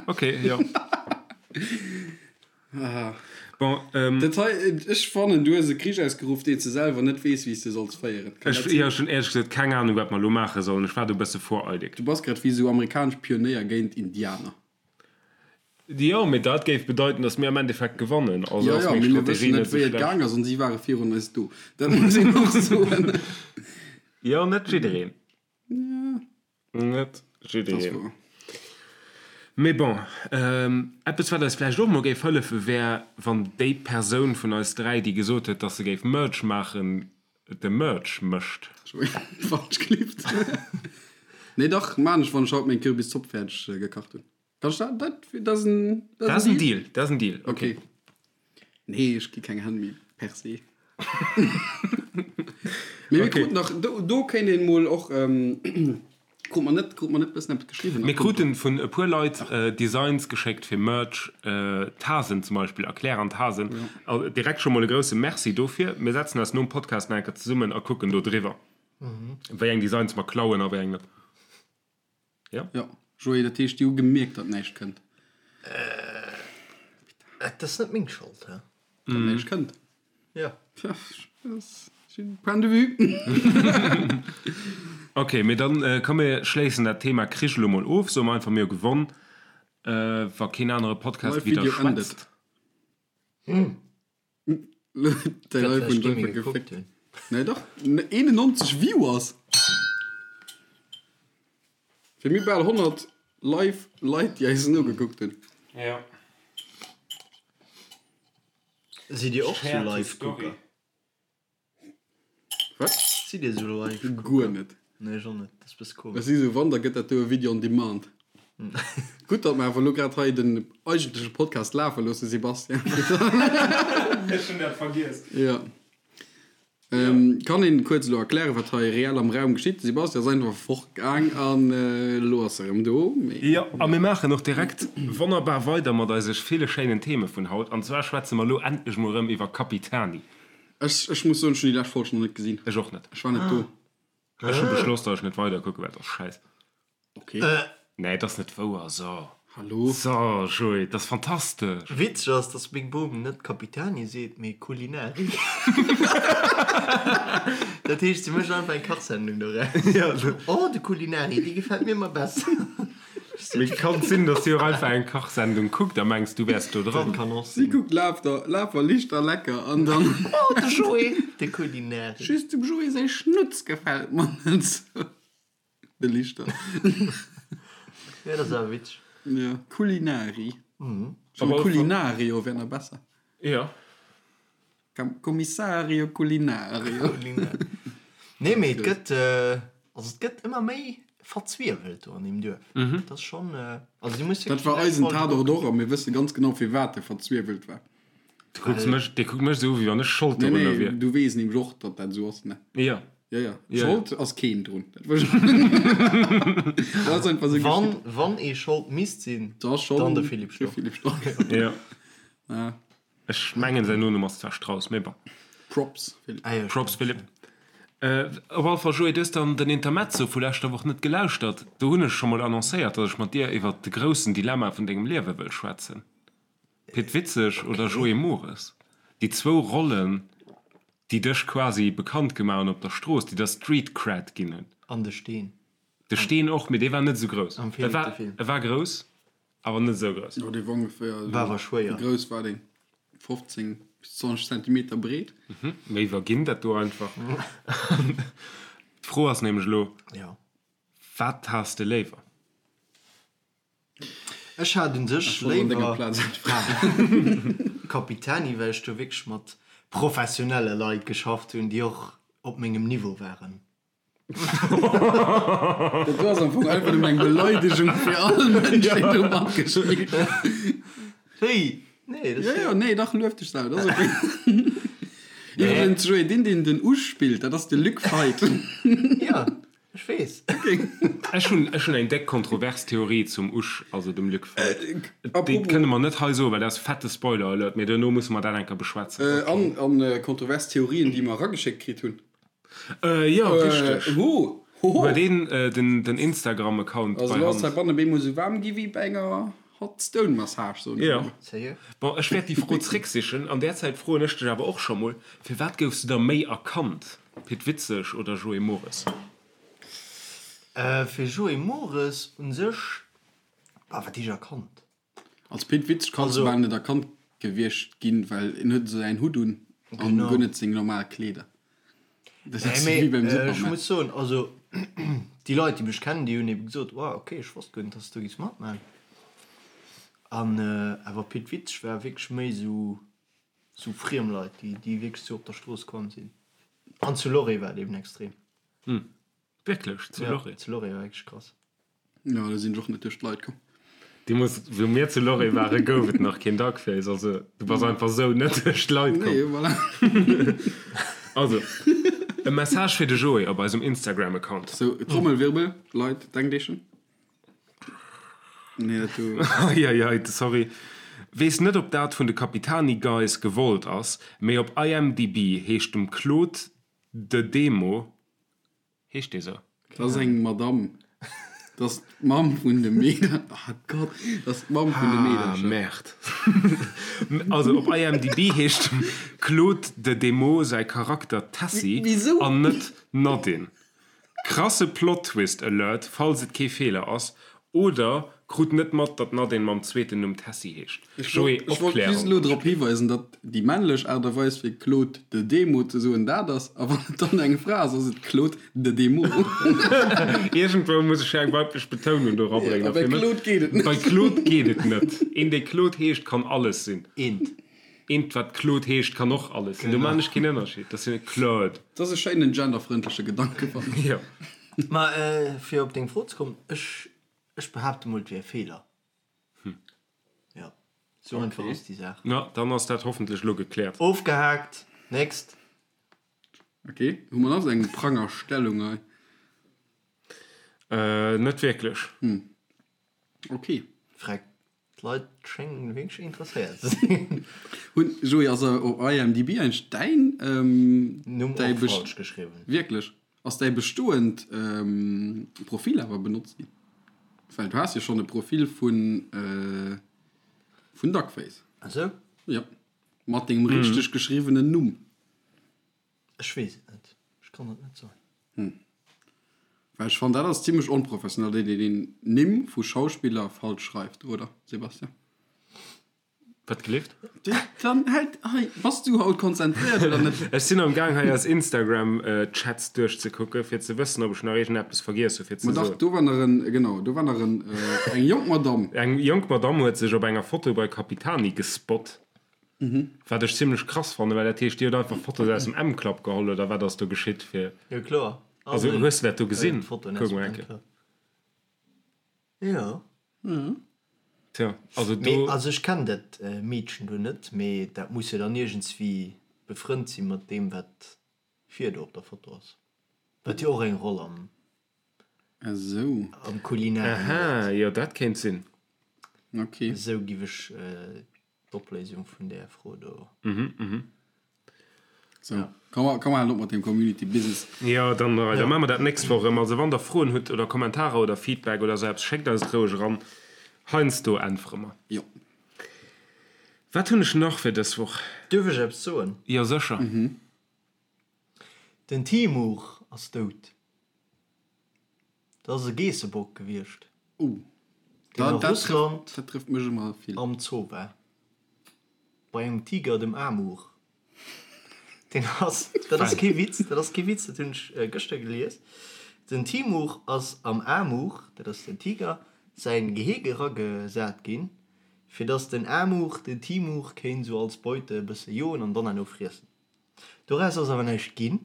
Ok, jo. Bon,
Dat hei, ech fannen, du hues e Krich ausgeruff, deen s de selwer net weess, wéi s de solls féieren.
Kann dat sinn? Ech hunn éierlech gesot keng Ahnung, wat mer elo maache sollen. Ech war do e bësse voreilig.
Du bass grad wéi esou amerikanesch Pionéier géint Indianer.
Jo, mee dat géif bedeiten, datt mir am Endeffekt gewannen.
Also ass meng Strategie net esou schlecht. Jo, jo, mee mir wëssen net, wéi et gaang ass, an si ware virun eis do. Dat muss een och soen.
Jo, net jiddereen. Net jiddereen. Mee bon, eppes wat eis vläicht och mol géif hëllefen, wär wann déi Persoun vun eis 3, déi gesot huet, dass se géif Merch maachen, de Merch mécht.
Falsch gelift. Nee dach, maan ech wann ech haut meng Kürbiszopp fäerdeg gekacht hunn. Kann ech dat, dat, dat ass en,
dat ass en Deal. Dat ass en Deal,
okay. Nee, ech gi keng Hänn méi per se. Mee mir kruten nach, do, do kéint een mol och, krut mer net, krut mer net bëssen eppes geschriwwen?
Mir kruten vun e puer Leit Designs geschéckt fir Merch, Tasen zum Beispill, Erklär an Tasen. Direkt scho mol e grousse Merci dofir. Mir setzen eis nom Podcast nach eng Kéier zesummen a kucken do driwwer, wéi eng Designs mer klauen a wéi eng net.
Jo. Jo, Joé, dat heescht, déi hu gemierkt, datt näischt kënnt.
Et ass net meng Schold, hä?
Datt näischt kënnt.
Jo.
Tja, Point de vue.
Ok, mee dann komm mir schléissen dat Thema Krich elo mol of. Soe mer einfach, mir hu gewonn, wa keen anere Podcast
Live Video ended.
widderschwätzt.
Däin iPhone huet einfach geféckt. Nee dach, 91 Viewers! Fir mir bal 100 live Leit déi eis nogekuckt hunn.
Ja.
Sidd Dir och sou Live-Gucker?
Wat?
Sidd Dir sou Live-Gucker?
Guer net.
Nee, ech och net. Dat ass bësse komesch.
Ech si sou, wann, da gëtt dat do e Video on demand. Gutt, datt mer awer elo grad hei den eigentleche Podcast lafe loossen, Sebastian.
Ech hunn dat vergiess.
Jo. Kann een kuerz elo erklären, wat hei reell am Raum geschitt? De Sebastian ass einfach fortgaang an elo ass e rëm do.
Jo, a mir maachen och direkt wonnerbar weider mat eise ville schéinen Theme vun haut. An zwar schwätze mer elo endlech mol erëm iwwer Capitani.
Ech, ech muss soen, ech hunn déi lescht Folg nach net gesinn.
Ech och net.
Ech war net do.
Ech hu beschloss, datt ech net weider kucke well, et ass schäiss.
Okay.
Nee, et ass net wouer. So.
Hallo?
So, Joé, et ass fantastesch.
Witzeg ass, dass meng Bom net Capitani seet, mee Culinari. Dat heescht, si mécht einfach eng Kachsendung doraus. Oh, de Culinari, dee gefält mir ëmmer besser.
Mee kann sinn, dass si och einfach eng Kachsendung kuckt a mengs, du wäers do dran.
Dat kann och
Si
sinn.
kuckt Laf der, Laf a Lichter lecker an dann.
Oh, de Joé, de Culinari.
Just dem Joé säi Schnutz gefält mer net sou. De Lichter.
Ja, dat ass awer witzeg.
Ja, Culinari. Schon Culinario wär nach besser.
Ja.
Commissario Culinario.
Nee, mee et gëtt, also et gëtt ëmmer méi verzwiewelt do an deem Duerf. Dat ass schonn, also du muss
Dat war eisen Tatort och a mir wësse ganz genau firwat e verzwiewelt war.
Du kucks mech, dee kuckt mech esou u wéi wann ech Schold
Nee,
dorunner
nee,
wier.
du weess nämlech och, datt dat esou ass, ne?
Jo.
Ja, ja.
Ja.
Schold ass keen drun. Dat wëll ech. Dat ass einfach esou
Wann,
geschitt.
wann ee Schold misst sinn,
Da schonn
dann de Philippe
de
Storck.
Philippe Storck.
Jo.
Ja.
Ech mengen säin Nonumm ass zwar Strauss, mee bon.
Props, Philippe.
Ah jo,
Props,
stimmt.
Philippe. Op alle Fall, Joé, du hues dann den Intermezzo vu leschter Woch net gelauschtert. Do hunn ech scho mol annoncéiert, datt ech mat dir iwwert de groussen Dilemma vun dengem Liewe wëll schwätzen. Pit Witzeg oder Joé Mores? Déi zwou Rollen, déi dech quasi bekannt gemaach hunn op der Strooss, déi der Street Cred ginn hunn.
An de Steen.
De Steen och, mee dee war net esou grouss.
Am
E
Philippe
war,
de Film.
e war grouss, awer net esou grouss.
Jo, dee war ongeféier esou.
War awer schwéier.
Wéi grouss war deen? 15? Bis 20 Zentimeter breet.
Mir iwwerginn dat do einfach. D'Fro ass nämlech elo, Wat has de léiwer?
Ech hat un sech léiwer Capitani, well ech do wierklech mat professionelle Leit geschafft hunn, déi och op mengem Niveau waren.
Dat do ass am Fong einfach nëmmen eng Beleidegung fir all Mënsch, deen do matgespillt huet.
Wéi? Nee,
dat ass jo. Jo, jo, nee, dach, luef dech selwer, dat ass ok. Iwwregens, Joé, deen, deen den Usch spillt, dat ass de Luc Feit.
Jo, ech weess.
Ech hunn, ech hunn eng déck kontrovers Theorie zum Usch, also dem Luc Feit. Déi kënne mer net hei soen, well dat ass fette Spoiler-Alert, mee duerno musse mer dat eng Kéier beschwätzen.
An, an kontrovers Theorien, déi mer erageschéckt kritt hunn.
Jo, richteg.
Ho, ho, ho.
Huet een den Instagram-Account
bei Hand? Also lo ass heibannen bemol sou waarm gi wéi bei enger Hot Stone Massage, soen ech
emol.
Sérieux?
Bon, ech wäert déi Fro zrécksichen. An där Zäit froen ech dech awer och scho mol, Firwat goufs du da méi erkannt, Pit Witzeg oder Joé Mores?
Fir Joé Mores un sech, bah, wat heescht erkannt?
Als Pit Witzeg kanns du bal net erkannt gewiescht ginn, well en huet esou säin Hutt un an guer net seng normal Kleeder.
Dat ass wéi beim Superman. Ech muss soen, also déi Leit déi mech kennen, déi hunn ebe gesot, wow ok, ech wosst guer net, dass du do giffs matman. An awer Pit Witzeg war wierklech méi esou sou friem Leit, déi déi wierklech sou op der Strooss komm sinn. An zu Loré war et eben extrem.
Wierklech? Zu Loré?
Ja, zu Loré war wierklech krass.
Jo, do sinn ech och net duerch d'Leit komm.
Deemools, wou mir zu Loré waren, gouf et nach keen Duckface. Also, du bass einfach sou net duerch d'Leit komm.
Nee, voilà.
Also, e Message fir de Joé op eisem Instagram-Account.
Sou, Trommelwirbel, Leit, denkt Iech en. Nee, dat do.
Eieiei, sorry. Weess net op dat vun de Capitani Guys gewollt ass, mee op IMDb heescht dem Claude De Demo Heescht dee sou?
Dat ass eng Madamm. Dat ass d'Mamm vun de Meeder. Ah Gott, dat ass d'Mamm vun de
Meedercher. Ah, Merde. Also op IMDb heescht dem Claude de Demo säi Charakter Tessy an net Nadine. Krasse Plot-Twist Alert, falls et kee Feeler ass. Oder krut net mat, datt d'Nadine mam zweeten Numm Tessy heescht.
Ech wollt just
Opklärung.
elo drop hiweisen, datt déi männlech Aart a Weis fir Claude de Demo ze soen dat ass, a wann et dann eng Fra ass, ass et Claude de Demo.
Iergendwou muss ech jo eng weiblech Betounung do erabréngen.
A bei Claude geet et net.
Bei Claude geet et net. Een, dee Claude heescht, kann alles sinn.
Eent.
Eent, wat Claude heescht, kann och alles sinn. Do maachen ech keen Ënnerscheed. Dat ass jo net Claude.
Dat ass e schéinen genderfrëndleche Gedanke, fannen ech.
Jo.
Ma fir op deng Fro ze kommen, ech, ech behaapte mol, et wier e Feeler. Jo, sou einfach ass déi Saach.
Na, dann ass dat hoffentlech elo gekläert.
Ofgehaakt, next.
Ok, hu mer nach esou eng Prangerstellung hei?
Net wierklech.
Ok.
Freck, D'Leit schéngen wierklech interesséiert ze sinn.
Hunn, Joé, ass op IMDb eigentlech däin,
Numm
däi
och falsch geschriwwen?
Wierklech? Ass däi bestoend Profil awer benotzt ginn? Well du has jo schonn e Profil vun, vun Duckface.
Ah sou?
Jo, mat dengem richteg geschriwwenen Numm.
Ech weess et net. Ech kann et net soen.
Well ech fannen, dat ass zimlech onprofessionell, datt een een Nimm vu Schauspiller falsch schreift, oder, Sebastian?
Wat gelift?
Dann hält hei, bass du haut konzentréiert oder net?
Ech sinn am Gaang hei eis Instagram Chats duerchzekucken, fir ze wëssen, ob ech nach iergendeppes vergiess hu fir ze
Ma dach,
soen.
do war nach en, genau, do war nach en, eng jonk Madamm.
Eng jonk Madamm huet sech op enger Foto bei Capitani gespot. Wat ech zimlech krass fannen, well dat heescht, dir hutt einfach Fotos aus dem M-Club geholl, oder wat ass do geschitt fir.
Jo kloer.
Also hues de dat do gesinn? Kuck mol eng Kéier.
Jo.
Tja, also do.
Mee also ech kennen dat Meedchen do net, mee dat muss jo dann iergendswéi befrënnt si mat deem wat vir do op der Foto ass, wat jo och eng Roll am
Esou.
am Kulinaren
Aha,
huet.
jo dat kéint sinn.
Ok.
Esou giff ech d'Opléisung vun där Fro do.
Sou, komm mer, komm mer halen op mat deem Community Business.
Jo, dann, da maache mer dat d'nächst Woch erëm. Also wann der Froen hutt oder Kommentarer oder Feedback oder sou eppes, schéckt eis et roueg eran. Heiansdo äntwere mer.
Jo.
Wat hunn ech nach fir dës Woch?
Duerf ech eppes soen?
Jo, sécher.
Den Timur ass dout. Dat ass e Geessebock gewiescht,
Oh,
deen a
dat, dat
Russland
trëfft, dat trëfft mech ëmmer vill.
am Zoo war. Bei engem Tiger, dem Amur. Deen ass, dat ass kee Witz, dat ass kee Witz, dat hunn ech gëschter gelies. Den Timur ass am Amur, dat ass den Tiger, säin Gehege eragesat ginn, fir dass den Amur den Timur kéint esou als Beute e bësse joen an dann herno friessen. Doraus ass awer näischt ginn,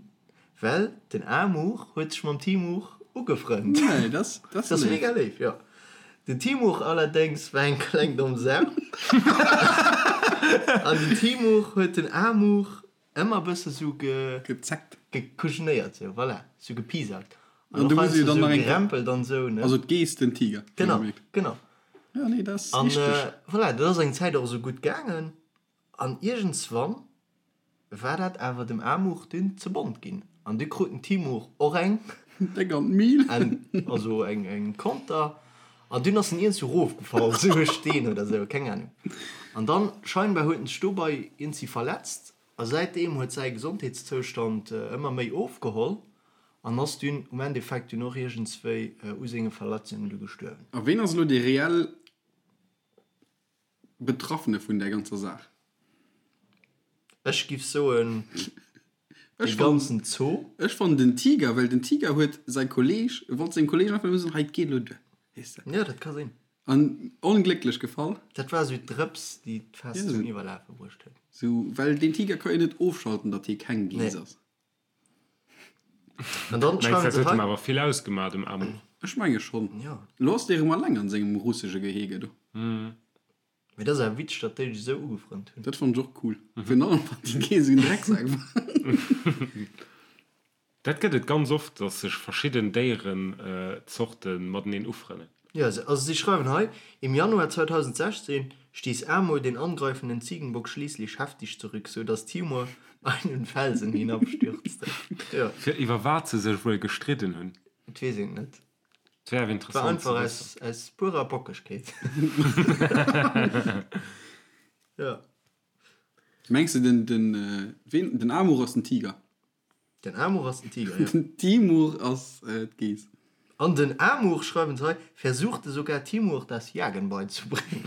well den Amur huet sech mam Timur ugefrënnt.
Nee, dat
ass léif. Mega léif, jo. Den Timur allerdéngs war eng kleng domm Sau an den Timur huet den Amur ëmmer bësse sou ge.
Gezeckt.
Gekujenéiert, sou, voilà, sou gepiesackt. An och heiansdo sou gerempelt an sou, ne.
Also d'Geess, den Tiger.
Genau, genau.
Jo, nee, dat ass richteg.
An voilà, dat ass eng Zäit och esou gutt gaangen an iergendswann War dat awer dem Amur dunn ze bont ginn an du krut den Timur och eng.
Déck an d'Mil.
Also eng Konter an dunn ass en iergendwou rofgefall, sou e Steen oder sou, keng Ahnung. An dann scheinbar huet en sech dobei iergendwéi verletzt a säitdeem huet säi Gesondheetszoustand ëmmer méi ofgeholl an ass dunn um Endeffekt dunn och iergendswéi u senge Verletzungen du gestuerwen.
A ween ass elo dee reell Betraffene vun där ganzer Saach?
Ech giff soen de ganzen Zoo.
Ech fannen den Tiger, well den Tiger huet säi Kolleg, wollt sengem Kolleg einfach nëmme soen, hei et geet elo duer, weess de.
Jo, dat ka sinn.
An onglécklech gefall.
Dat war esou d'Drëps, déi d'Faass zum Iwwerlafe bruecht huet.
Sou, well den Tiger ka jo net ofschalten, datt hie keng Geess ass.
An dann
Mengs
schreiwen
dat
se
huet
hei.
em awer vill ausgemaach dem Amur.
Ech menge schonn.
Jo.
Elo ass dee rëm alleng an sengem russesche Gehege do.
Mee dat ass awer witzeg, datt déi sech esou ugefrënnt hunn.
Dat fannen ech och cool. Virun allem wann déi Geess esou en Drecksak war.
Dat gëtt et ganz oft, datt sech verschidden Déierenzorte mateneen ufrënnen.
Jo, also si schreiwen hei, Im Januar 2016 stieß Amur den angreifenden Ziegenbock schließlich heftig zurück, so dass Timur einen Felsen hinabstürzte. Jo.
Fir iwwer wat se sech wuel gestridden hunn?
Et weess een et net.
Et wär awer
Et war
interessant ze
einfach
wëssen.
aus, aus purer Bockegkeet. Jo.
Mengs de den, den, ween, den Amur ass den Tiger?
Den Amur ass den Tiger, jo.
Den Timur ass d'Geess.
An den Amur, schreiwen se hei, versuchte sogar Timur das Jagen beizubringen.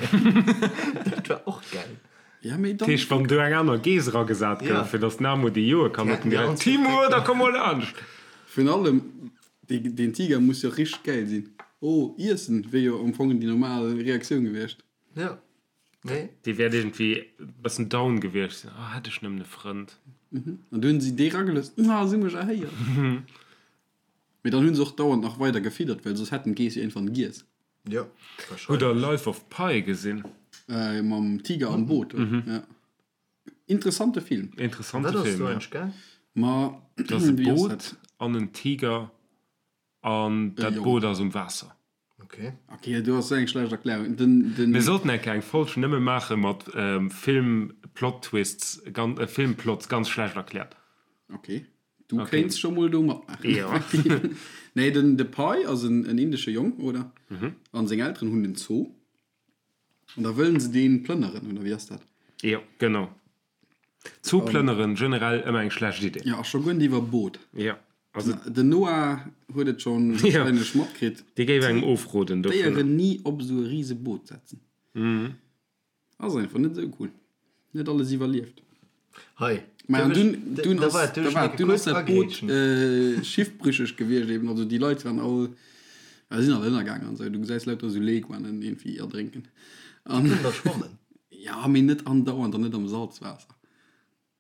Dat war och gäil.
Ja, mee
Dat
dann.
heescht, wann do eng aner Geess eragesat
Ja.
gouf, fir datt den Amur déi joe kann,
Déi
huet en
hätten déi
direkt,
all
Timur, da komm mol laanscht!
Virun allem, dee, deen Tiger muss jo richteg gäil sinn. Oh, iessen wier jo am Fong déi normal Reaktioun gewiescht.
Ja. Nee.
Dee wäert iergendwéi e bëssen down gewiescht sinn, Oh, hätt ech nëmmen e Frënd.
An du hunn si dee ragelooss, Ah, si hu mech erhéiert. Mee dann hunn se och dauernd nach weider gefiddert, well soss hätten d'Geess jo iergendwann giess.
Jo,
Hutt der
wahrscheinlech.
Life of Pi gesinn?
Mam Tiger am Boot, oder? Ja. Interessante Film.
Interessante
Wat ass
Film,
do
ja.
eigentlech gaang?
Ma,
Et ass e
wéi ass
Boot
dat?
an en Tiger an
E
dat
Jong.
Boot ass um Waasser.
Okay.
Okay, du ass eng schlecht Erklärung. Den, den
Mir sollten eng eng Folg nëmme maache mat Film Plot Twists, Filmplots ganz schlecht erkläert.
Okay. Du
Okay.
kéints scho mol do matmaachen.
Jo.
Nee, den de Pai ass en, en indesche Jong, oder?
Mhm.
An seng Elteren hunn en Zoo. An da wëllen se deen plënneren, oder wéi ass dat?
Jo, genau. Zoo plënneren, generell ëmmer eng schlecht Idee.
Jo, a scho guer net iwwer Boot.
Jo. Also
Den Noah huet et schonn warscheinlech matkritt.
Dee géif engem ofroden dovunner.
Déieren ni op esou e rise Boot setzen. Ass einfach net esou cool. Net alles iwwerlieft.
Hei.
Mä an dunn, dunn
Da
ass,
war et
da
duerch
war,
eng
dunn ass
kuerz
dat Boot
agrätschen.
schiffbrücheg gewiescht eben. Also déi Leit waren all, ja, sinn all ënnergaangen an esou. Du gesäis lauter esou Leguanen iergendwéi erdrénken. An
Kënnen der schwammen.
ja, mee net andauernd an net am Salzwaasser.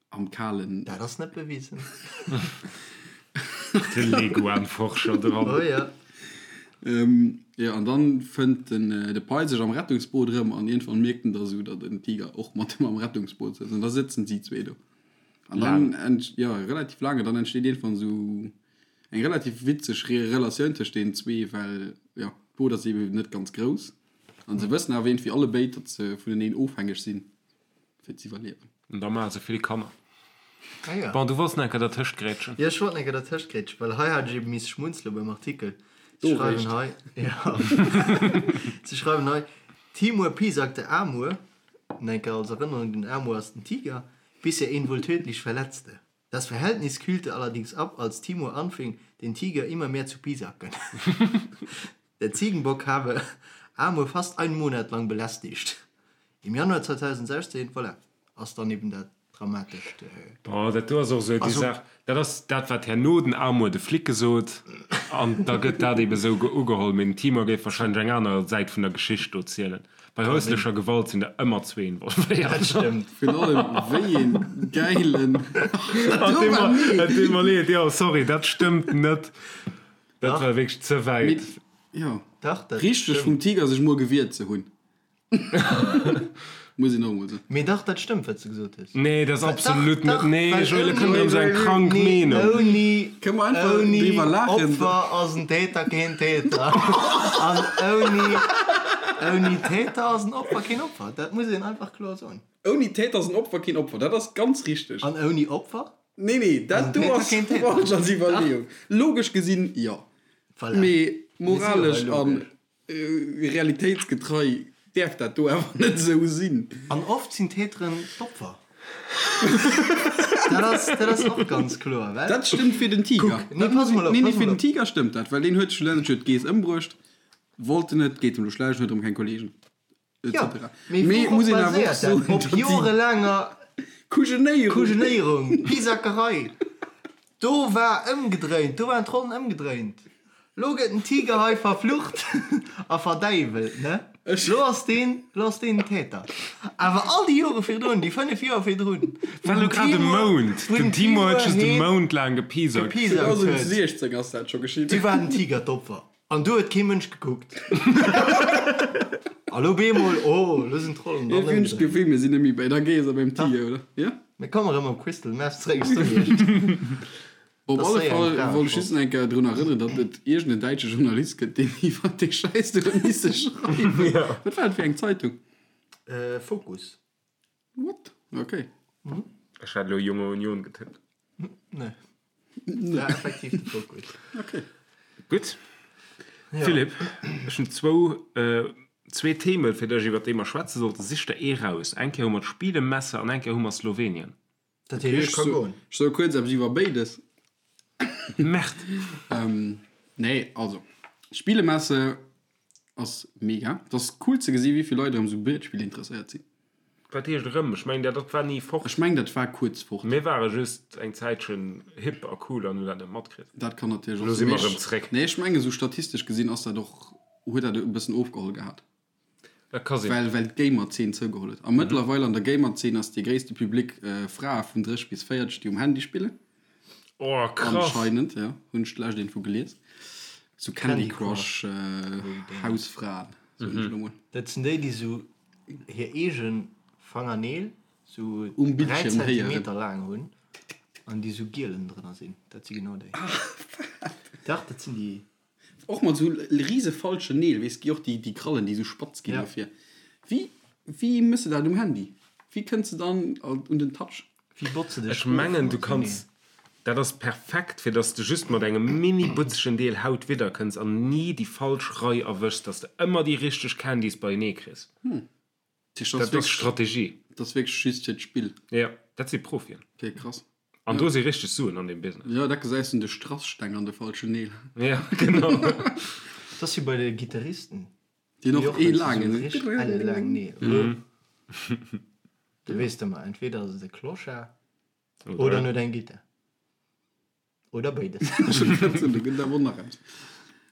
Am kalen.
Dat ass net bewisen.
De Leguan-Forscher dran.
Oh ja.
Ähm, jo, an dann fënnt den de Pai sech am Rettungsboot erëm an iergendwann mierkt en da sou, datt en Tiger och mat him am Rettungsboot sëtzt an da sëtzen si zwee do. An dann ent, jo, relativ laang, an dann entsteet iergendwann sou eng relativ witzeg Re Relatioun tëscht deenen zwee, well, jo, d'Boot ass eben net ganz grouss an se wëssen awer iergendwéi allebéid, datt se vuneneen ofhängeg sinn. fir z'iwwerliewen.
An da maache se vill Kanner.
Ah ja.
Bon, du wollts nach eng Kéier dertëscht grätschen.
Jo, ech wollt nach eng Kéier dertëscht grätschen, well hei hat ech eben misse schmunzele beim Artikel. Se
Do
schreiwen
réischt.
hei, jo, se schreiwen hei, Timur piesacte Amur, nach eng Kéier als Erënnerung, den Amur ass den Tiger, bis er ihn wohl tödlich verletzte. Das Verhältnis kühlte allerdings ab, als Timur anfing, den Tiger immer mehr zu piesacken. Der Ziegenbock habe Amur fast einen Monat lang belästigt. Im Januar 2016, voilà, ass dann eben dat. dramatescht.
Bon, dat do ass och esou déi Saach, dat ass dat, wat herno den Amour de Flic gesot, an da gëtt dat ebe esou ugeholl. Mee den Timur géif wahrscheinlech eng aner Säit vun der Geschicht do zielen. Bei häuslecher Gewalt sinn der ëmmer zwee involvéiert.
Dat stëmmt.
Virun allem, wéi een gäilen.
Et deet mer leed, jo, sorry, dat stëmmt net. Dat war wierklech ze wäit.
Jo,
Dach, dat
richteg
stëmmt.
vum Tiger sech mol gewiert ze hunn. Muss een och emol soen.
Mee dach, dat stëmmt, wat s de gesot hues.
Nee, dat ass absolut net. Nee,
Well
Joël,
ouni,
kënnt erëm sou eng krank
nee,
Meenung.
ouni,
Kënne mer einfach
ouni
driwwer laachen?
Opfer ass en Täter keen Täter. An ouni, ouni Täter ass en Opfer keen Opfer. Dat muss een einfach kloer soen.
Ouni Täter ass en Opfer keen Opfer, dat ass ganz richteg.
An ouni Opfer?
Nee, nee, dat do
Täter
ass
keen Täter.
falsch als Iwwerleeung. Logesch gesinn, jo.
Voilà.
Mee
Mir si jo hei
moralesch an
logesch.
Realitéitsgetrei däerf dat do awer net esou sinn.
An oft sinn d'Täteren d'Opfer. Dat ass, dat ass och ganz kloer, well.
Dat stëmmt fir den Tiger.
Kuck, nee, pass mol op,
Nee, nee,
pass
fir
mol
den
op.
Tiger stëmmt dat, well deen huet schlussendlech huet d'Geess ëmbruecht, wollt en net, geet em elo schlecht, huet erëm keng Kollegen, et
Jo,
cetera.
mee
Mee
wourop
muss een awer och
baséiert dat?
soen,
Op
datt déi
jorelaanger
Kujenéierung.
Kujenéierung, Pisackerei. Do war ëmgedréint, do waren d'Rollen ëmgedréint. Lo gëtt den Tiger hei verflucht a verdäiwelt, ne? Lo ass deen, lo ass deen den Täter. Awer all déi Jore virdrun, déi 5 Joer virdrun,
War lo grad e Mount, den Timo huet just e Mount laang gepiesackt.
gepiesackt huet,
2016 ass dat scho geschitt.
du war den Tiger d'Opfer. An du huet kee Mënsch gekuckt. A lo bemol, oh, lo sinn d'Rollen dann
Iergendwéi hunn ech
ëmgedréint.
d'Gefill, mir sinn net méi bei der Geess a beim Tiger, oder? Jo?
Mir kommen erëm op Crystal Meth zréck, ech soen iech.
Op
Das
alle
sei eng
Fall
Frage
wollt ech just nach eng Kéier drun erënneren, datt et iergend en däitsche Journalist gëtt, deen iwwer dee Schäiss do huet misse schreiwen. Wat war dat fir eng Zeitung?
Focus.
What? Okay.
Ech hat elo Junge Union getippt.
Nee. War effektiv de Focus.
Okay.
Gutt. Philippe, ech hunn zwou, zwee Themen, fir dech, iwwer déi mer schwätze sollten. Sich der ee raus. Eng Kéier hu mer d'Spielemesse an eng Kéier hu mer Slowenien.
Dat heescht, ech ka goen.
Ech soe kuerz eppes iwwer béides.
Merde!
Nee, also, Spielemesse ass mega. Et ass cool ze gesi wéi vill Leit erëm sou Brietspiller interesséiert sinn.
Wat heescht erëm? Ech mengen, dat war ni fort.
Ech mengen, dat war kuerz fort.
Mir ware just eng Zäitchen hip a cool an hunn dat net matkritt.
Dat kann natierlech och
Elo
sinn.
si mer erëm zréck.
Nee, ech mengen, sou statistesch gesinn ass dat och, huet dat e bëssen ofgeholl gehat.
Dat ka sinn.
Well, well d'Gamer-Zeen zougeholl huet. A mëttlerweil an der Gamer-Zeen ass dee gréisste Public Frae vun 30 bis 40, déi um Handy spillen.
Oh, krass!
Anscheinend, ja. Hunn ech d'lescht Info gelies. Sou Candy
Candy
Crush Hausfraen, soen ech elo mol.
Dat sinn déi, déi sou hir eege Fangerneel sou
Um
3
Bildschierm héieren.
Zentimeter laang hunn an déi sou gielen drënner sinn. Dat si genau déi. Dach, dat sinn déi.
Och mat sou riese falschen Neel, weess, gi och déi, déi Krallen, déi sou spatz ginn
Ja.
dofir. Wéi, wéi mëss de dat um Handy? Wéi kënns de dann un den Touch?
Wéi botze dech
Ech mengen, du
of mat
kanns, dat ass perfekt, fir dass de just mat engem mini butzegen Deel Haut widder kënns an ni déi falsch Rei erwëschs, dass de ëmmer déi richteg Candies beienee kriss.
Dat
Dat ass Strategie.
Dat ass wierklech just fir d'Spill.
Ja, dat si Profien.
Okay, krass.
An do si richteg Suen an deem Business.
Jo, dat gesäis un de Strasssteng an de falschen Neel.
Ja, genau.
Dat ass wéi bei de Gittaristen.
Déi hunn och ee laangen.
Richteg elle laang Neel. Du weess ëmmer, entweder ass et e Clochard oder en huet eng Gittar. Oder béides.
Do gëtt awer och nach eppes.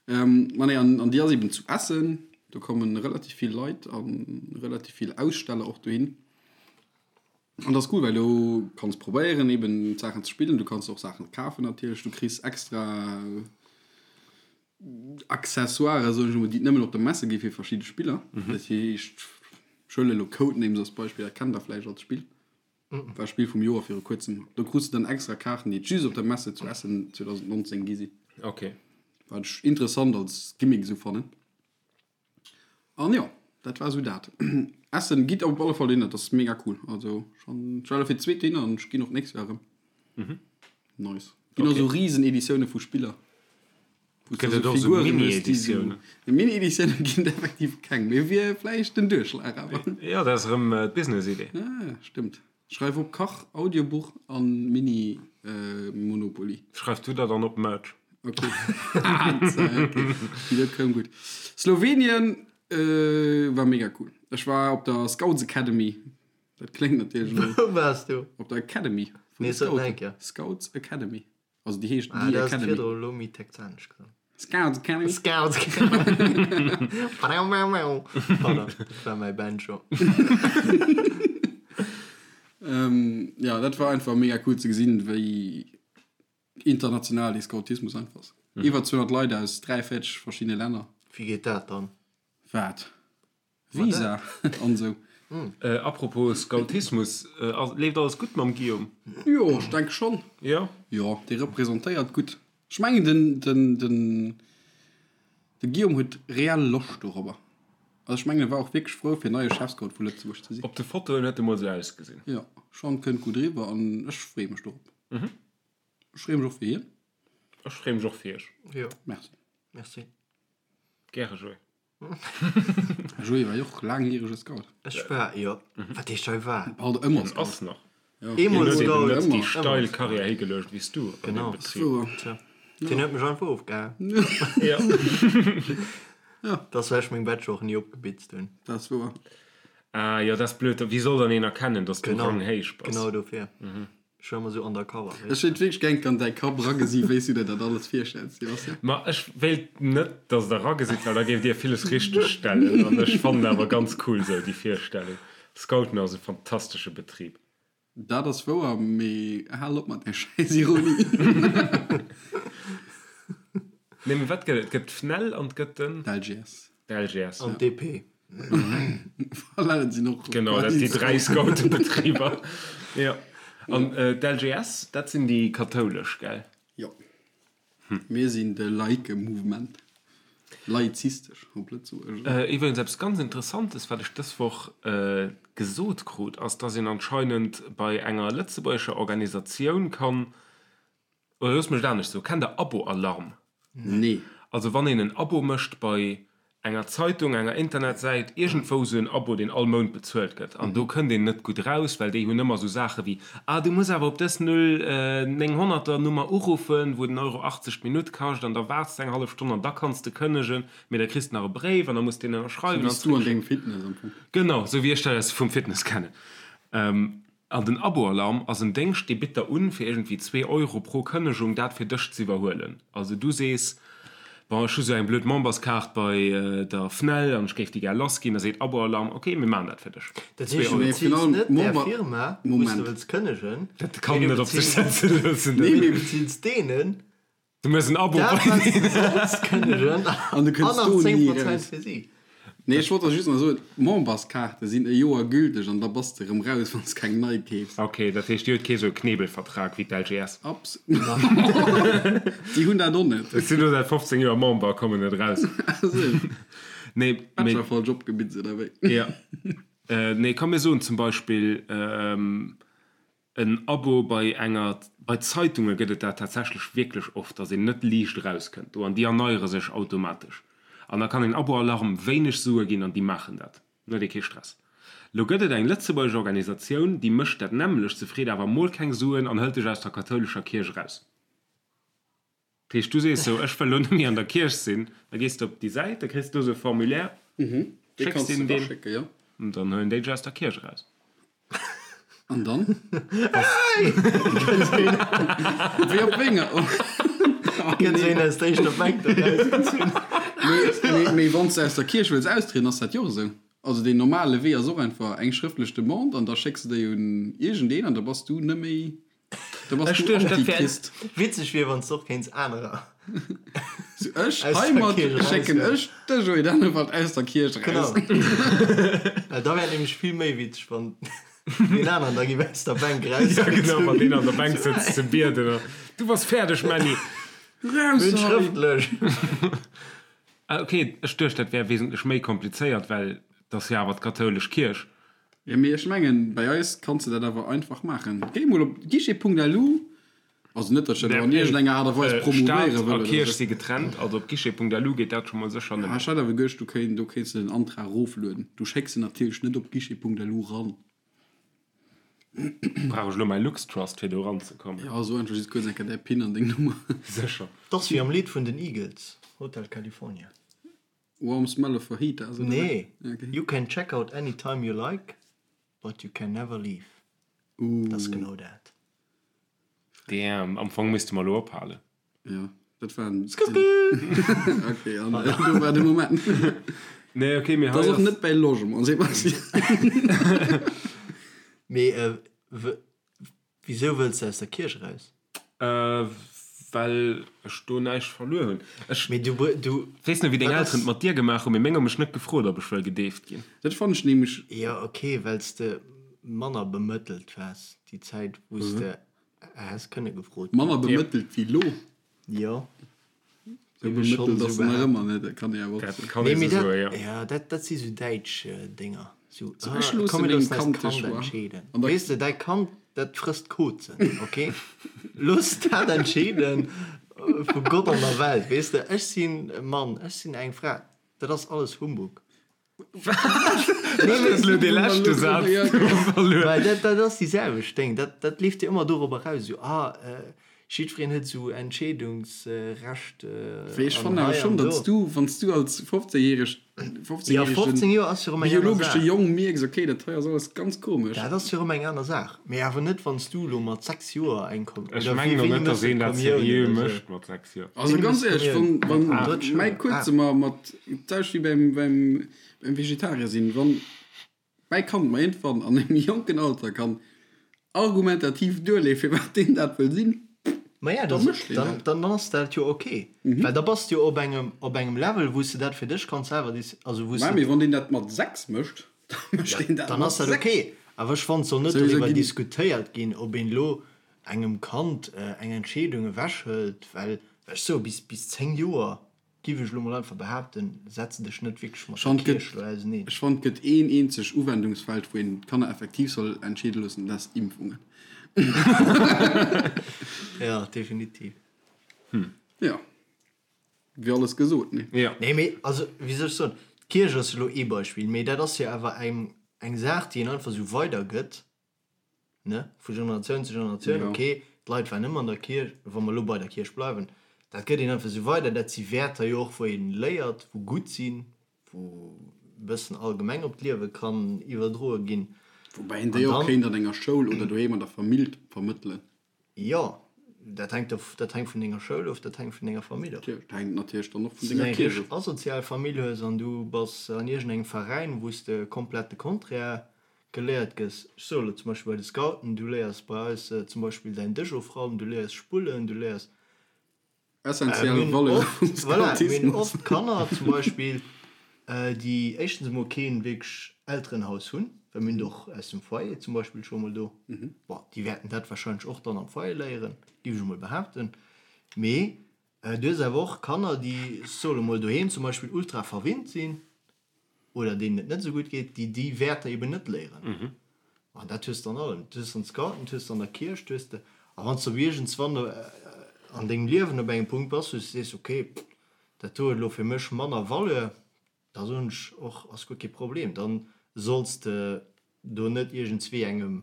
Ma nee, an déi ass eben zu Essen. Do komme relativ vill Leit a relativ vill Aussteller och dohin. An dat ass cool, well do kanns probéieren eben d'Saachen ze spillen. Du kanns och Saachen kafen natierlech. Du kriss extra Accessoiren, soen ech emol, déi et nëmmen op der Messe gi fir verschidde Spiller. Dat heescht, ech huelen elo Codenames als Beispill, dat kennt der vläicht als Spill. War Spill vum Joer viru kuerzem. Do krus de dann extra Kaarten, déi et just op der Messe zu Essen 2019 gi sinn.
Ok.
Wat ech interessant als Gimmick esou fannen. An jo, dat war esou dat. Essen, gitt op alle Fall dohinner, dat ass mega cool. Also schon, ech war elo fir d'zweet dohinner an ech ginn och d'nächst Joer erëm. Nice. Ginn och esou riesen Editioune vu Spiller.
Gëtt et och esou Mini-Editiounen?
Mini-Editiounen ginn et effektiv keng, mee wier vläicht den Duerchschlag awer.
Jo, dat ass erëm d'Business-Idee.
Ja, stëmmt. Schreif op, Kach, Audiobuch a Mini-Monopoly.
Schreif du der dann op Merch.
Ok. Ok, déi do koum gutt. Slowenien war mega cool. Ech war op der Scouts Academy. Dat kléngt natierlech elo.
Wou waars du?
Op der Academy vun
Nee,
de
sot
Scouten.
eng Kéier.
Scouts Academy. Also déi heescht
Ah,
The
dat ass
Academy.
virdru elo méi texanesch gesot.
Scouts Academy.
Scouts Academy. Pardon, dat war mäi Banjo.
Ähm, ja, dat war einfach mega cool ze gesinn, wéi international dee Scoutismus einfach ass. Iwwer 200 Leit aus 43 verschiddene Länner.
Wéi geet dat dann?
Wat? Visa an esou.
Apropos Scoutismus, leeft alles gutt mam Guillaume?
Jo, ech denke schonn.
Jo?
Jo, dee representéiert gutt. Ech mengen den, den, den, de Guillaume huet reell Loscht dorobber. Also ech mengen e war och wierklech frou fir neie Chefscout vu Lëtzebuerg ze sinn.
Op de Fotoen huet e mol esou ausgesinn.
Jo, schonn, kënnt gutt eriwwer an ech freeë mech dorop. Ech freeë mech och fir hien.
Ech freeë mech och fir iech.
Jo.
Merci.
Merci.
Gäre, Joé.
Joé war jo och laangjärege Scout.
Ech war, jo. Wat heescht hei war?
Alt ëmmer
En
Scout.
ass nach.
Eemol
Hien huet
Scout.
eben net déi
Ëmmer.
steil Karriär higeluecht wéi s du an
Genau.
deem Betrib.
Wouer.
Tja. Deen huet mech einfach ofgehaen.
Ja.
Dat ass well ech meng Bachelor och ni opgebitzt hunn.
Dat ass wouer.
Ah jo, dat ass blöd. Wéi soll dann een erkennen, dass du
Genau.
ranghéich bass?
Genau dofir. Ech war ëmmer sou undercover,
Ech
weess de.
wéilt wierklech gär an däi Kapp eragesi wéi s du der dat alles virstells, Sebastian.
Ma ech wéilt net, dass der eragesitt, well da géift dir villes richteg stellen. An ech fannen awer ganz cool sou déi Virstellung. Scouten ass e fantastesche Betrib.
Dat ass wouer, mee hal op mat där schäiss Ironie.
Nee, mee wat gëtt et? Et gëtt d'FNEL an et gëtt den.
D'LGS.
D'LGS.
An d'DP.
Voilà, dat sinn och
Genau, dat si dräi Scoutenbetriber. Jo. An d'LGS, dat sinn déi kathoulesch, gell?
Jo. Mir sinn de laike Mouvement. Laizistesch op Lëtzebuergesch.
Iwwregens eppes ganz Interessantes, wat ech dës Woch gesot krut, ass, dass een anscheinend bei enger lëtzebuergescher Organisatioun kann Oder looss mech et anescht soen, Kennt der Abo-Alarm?
Nee.
Also wann een en Abo mécht bei enger Zeitung, enger Internetsäit, iergendwou esou en Abo, deen all Mount bezuelt gëtt, an do kënnt een net gutt eraus, well déi hunn ëmmer esou Saache wéi, Ah, du muss awer op dës 0900er Nummer uruffen, wou den Euro 80 d'Minutt kascht, an da waarts de eng hallef Stonn an da kanns de kënnegen, mee da kriss de nach e Bréif an da muss de deen
Sou
ënnerschreiwen
wéi
an
s du an
zréckschécken.
dengem Fitness am Fong.
Genau, esou wéi ech dat aus vum Fitness kennen. An den Aboalarm ass en Déngscht, dee bitt der un, fir iergendwéi zwee Euro pro Kënnegung dat fir dech z'iwwerhuelen. Also du sees, Bon, ech hu sou eng blöd Memberskaart bei der FNEL an ech géif déi gär lassginn. Da seet Aboalarm, Ok, mir maachen dat fir dech.
Dat
Zwee
heescht, du
Euro.
beziils net där Firma, wou s de wëlls kënnegen,
Dat kann
mee du
net op sech
beziils,
setze loossen.
mee du beziils deenen,
Du méchs en Abo
Dat
bei
wat
deenen.
se soss kënnegen
An du
an
kënns
nach
do
10
ni
Prozent
eraus.
fir si.
Nee, ech wollt der just nach soen, d'Memberskaarte sinn e Joer gülteg an da bass de erëm raus, wann s keng nei keefs.
Ok, dat heescht, dir hutt kee sou e Knebelvertrag wéi d'LGS?
Abs. Déi hunn dat och net.
Ech sinn elo säit 15 Joer Member, kommen net raus. Nee, mee.
Bachelor falsch opgebitzt oder wéi?
Ja. Nee, komm mir soen zum Beispill, En Abo bei enger, bei Zeitunge gëtt et dat tatsächlech wierklech oft, dass een net liicht erauskënnt do an déi erneiere sech automatesch. An da kann een Abo-Alarm wéineg Sue ginn an déi maachen dat. Dann huet ee kee Stress. Lo gëtt et eng lëtzebuergesch Organisatioun, déi mécht dat nämmlecht, se freet awer mol keng Suen an hëlt dech aus der kathoulescher Kierch eraus. Dat heescht, du sees sou, ech wëll elo net méi an der Kierch sinn, da gees de op déi Säit, da kriss de do sou e Formulaire,
Dee
schécks
kanns de
deenen deen,
raschécken, jo.
an dann huelen déi dech aus der Kierch eraus.
An dann? Wéi op wénger?
Gëtt sou een aus der éischter Bänk do rausgezunn.
Mee, mee wann s de aus der Kierch wëlls austrieden, ass dat jo och esou. Also deen normale Wee ass och einfach eng schrëftlech Demande an da schécks de déi un iergendeen an da bass du net méi Da bass
Ech
du
duecht, dat wär-
Antichrist.
Witzeg wier, wann s de och kéints anerer
So, ech
aus der
heimat
Kierch
schécken
eraushuelen.
ech de Joé Dennewald aus der Kierch
Genau.
eraus.
Well da wär et nämlech vill méi witzeg, wann deen aneren da géif aus der Bänk
Ja, genau, wann
erausgezunn.
deen an der Bänk sëtzt ze bieden a Du bass fäerdeg, Männi!
Raus
Hunn
hei!
schrëftlech.
Ah, ok, ech duecht, dat wär wesentlech méi komplizéiert, well 't ass jo awer d'kathoulesch Kierch.
Jo, mee ech mengen, bei eis kanns de dat awer einfach maachen. Géi mol op guichet.lu, also net, datt ech dat elo an iergendenger Aart a Weis promouvéiere
Staat
wëll
a
oder
Kierch
sou.
si getrennt, also op guichet.lu geet dat scho mol sécher net.
Ah, ech hat awer geduecht, du kéint, do kéints de den Antrag eroflueden. Du schécks en natierlech net op guichet.lu ran.
Brauch ech elo mäi LuxTrust, fir do eranzekommen?
Jo, so einfach just kuerz eng Kéier däi Pin an deng Nummer.
Sécher.
't ass wéi am Lidd vun den Eagles, Hotel California.
Warm smell of fajitas, oder
Nee,
wat? Okay.
You can check out anytime you like. But you can never leave. Dat ass genau dat.
Damn, am Fong misste mer elo ophalen.
Jo, dat war en. Ok, an do war de Moment.
Nee, ok, mee
hei ass. Dat ass och net bäi Logement, Sebastian.
Mee wisou wëlls de aus der Kierch eraus?
Well ech do näischt verluer hunn. Ech
Mee du, du.
Weess net, wéi deng Elteren et mat dir gemaach hunn, mee meng hu mech net gefrot, ob ech wëll gedeeft ginn.
Dat fannen ech nämlech.
Jo, ok, well s de manner bemëttelt waars déi Zäit, wou s de häss kënne gefrot ginn.
Manner bemëttelt wéi lo?
Jo.
Sou bemëttelt ass en nach ëmmer net, dat kann ee awer och soen.
Kann ee sou soen, jo.
Jo, dat, dat si sou däitsch Dénger. Sou,
So, ech
ah,
loosse
komm, mir
mengem
loossen eist
Kand de
Kand
Choix.
entscheeden.
An da.
Weess de, däi Kand, dat frësst Kozen, ok? Looss dat entscheeden vu Gott an der Welt, weess de. Ech sinn e Mann, ech sinn eng Fra, dat ass alles Humbug.
Dat ass elo dee leschte Saz verluer.
Well dat, dat ass déi selwecht Déng. Dat, dat leeft jo ëmmer dorop eraus, esou, ah, jiddwereen huet esou Entscheedungsrecht
Wéi ech
an
fannen awer
hei
schonn,
an
datt
do.
s du, wann s du als 15-järeg,
Jo, 15
15-järegen
Joer ass jo erëm eng aner
biologesche
Saach.
Jong mierks, okay, dat hei ass alles ganz komesch.
Dat ass jo erëm eng aner Saach. Mee awer net, wann s du elo mat 6 Joer eng Kom
Ech
oder
mengen
wéi,
och
wéini
net,
méchs
datt
de
een dat
d'Kommioun
seriö
oder sou?
mécht mat 6 Joer.
Also
Wéini
ganz
méchs de
éierlech,
d'Kommioun?
wann, wann
Mat drëtt
mäi
Schoul?
Kuerze
Ah.
mer mat, d'selwecht wéi beim, beim, beim Vegetarier sinn, wann mäi Kand mer iergendwann an engem jonken Alter kann argumentativ duerleeën, firwat deen dat wëll sinn,
Maja,
da
dann,
mécht deen
dann,
dat.
dann ass dat jo ok. Well da bass de jo op engem, op engem Level, wou s de dat fir dech kanns selwer déci-, also wou s
Mä
de.
mee wann deen dat mat 6 mécht, da mécht deen dat
Dann
mat
ass dat
6.
ok. Awer ech fannen, et soll net
Souwisou
doriwwer
ginn.
diskutéiert ginn, ob een elo engem Kand eng Entscheedung ewechhëlt, well ech soe bis, bis 10 Joer, giff ech elo mol einfach behaapten, setz dech net wierklech mat der Kierch elo auseneen.
Ech fannen, et gëtt een eenzeg Uwendungsfeld, wou een d'Kanner effektiv soll entscheede loossen, dat ass Impfungen.
Jo, definitiv.
Jo, wier alles gesot, nee?
Jo.
Nee, mee also, wéi soll ech soen, d'Kierch ass elo ee Beispill, mee dat ass jo awer eng, eng Saach, déi een einfach esou weidergëtt. ne, vu Generatioun zu Generatioun,
Ja.
ok, d'Leit waren ëmmer an der Kierch, wa mer elo bei der Kierch bleiwen, dat gëtt een einfach esou weider, dat si Wäerter jo och, wou ee léiert, wou gutt sinn, wou e bëssen allgemeng op d'Liewe kann iwwerdroe ginn.
Woubäi een
An
déi och
dann,
kéint an enger Schoul oder doheem an der Famill vermëttelen.
jo, dat hänkt of, dat hänkt vun denger Schoul of, dat hänkt vun denger Famill of.
Dat hänkt natierlech dann och vun
Wann s du
denger
eng
Kierch
richteg
of.
asozial Famill hues an du bass an iergendengem Veräin, wou s de komplett de Contraire geléiert gëss. Ech soe lo zum Beispill bei de Scouten, du léiers bei eis zum Beispill däin Dësch ofraumen, du léiers spullen, du léiers.
Essentiell
Mir hunn
Valeur
oft,
vum
voilà, mir hunn
Scoutismus.
oft Kanner zum Beispill, déi éischtens emol keen wierklech Elterenhaus hunn, well mir hunn der och aus dem Foyer zum Beispill scho mol do. Bon, déi wäerten dat wahrscheinlech och dann am Foyer léieren, géif ech emol behaapten. Mee du hues awer och Kanner, déi, ech soe lo mol, doheem zum Beispill ultra verwinnt sinn, oder deenen et net esou gutt geet, déi déi Wäerter eben net léieren. An dat hues de an allem. Dat hues de an Scouten, dat hues de an der Kierch, dat hues de. A wann s de op iergendswann an dengem Liewen op engem Punkt bass, wou s de sees, okay, dat do huet elo fir mech manner Valeur, da soen ech och, ass guer kee Problem, da solls de do net iergendswéi engem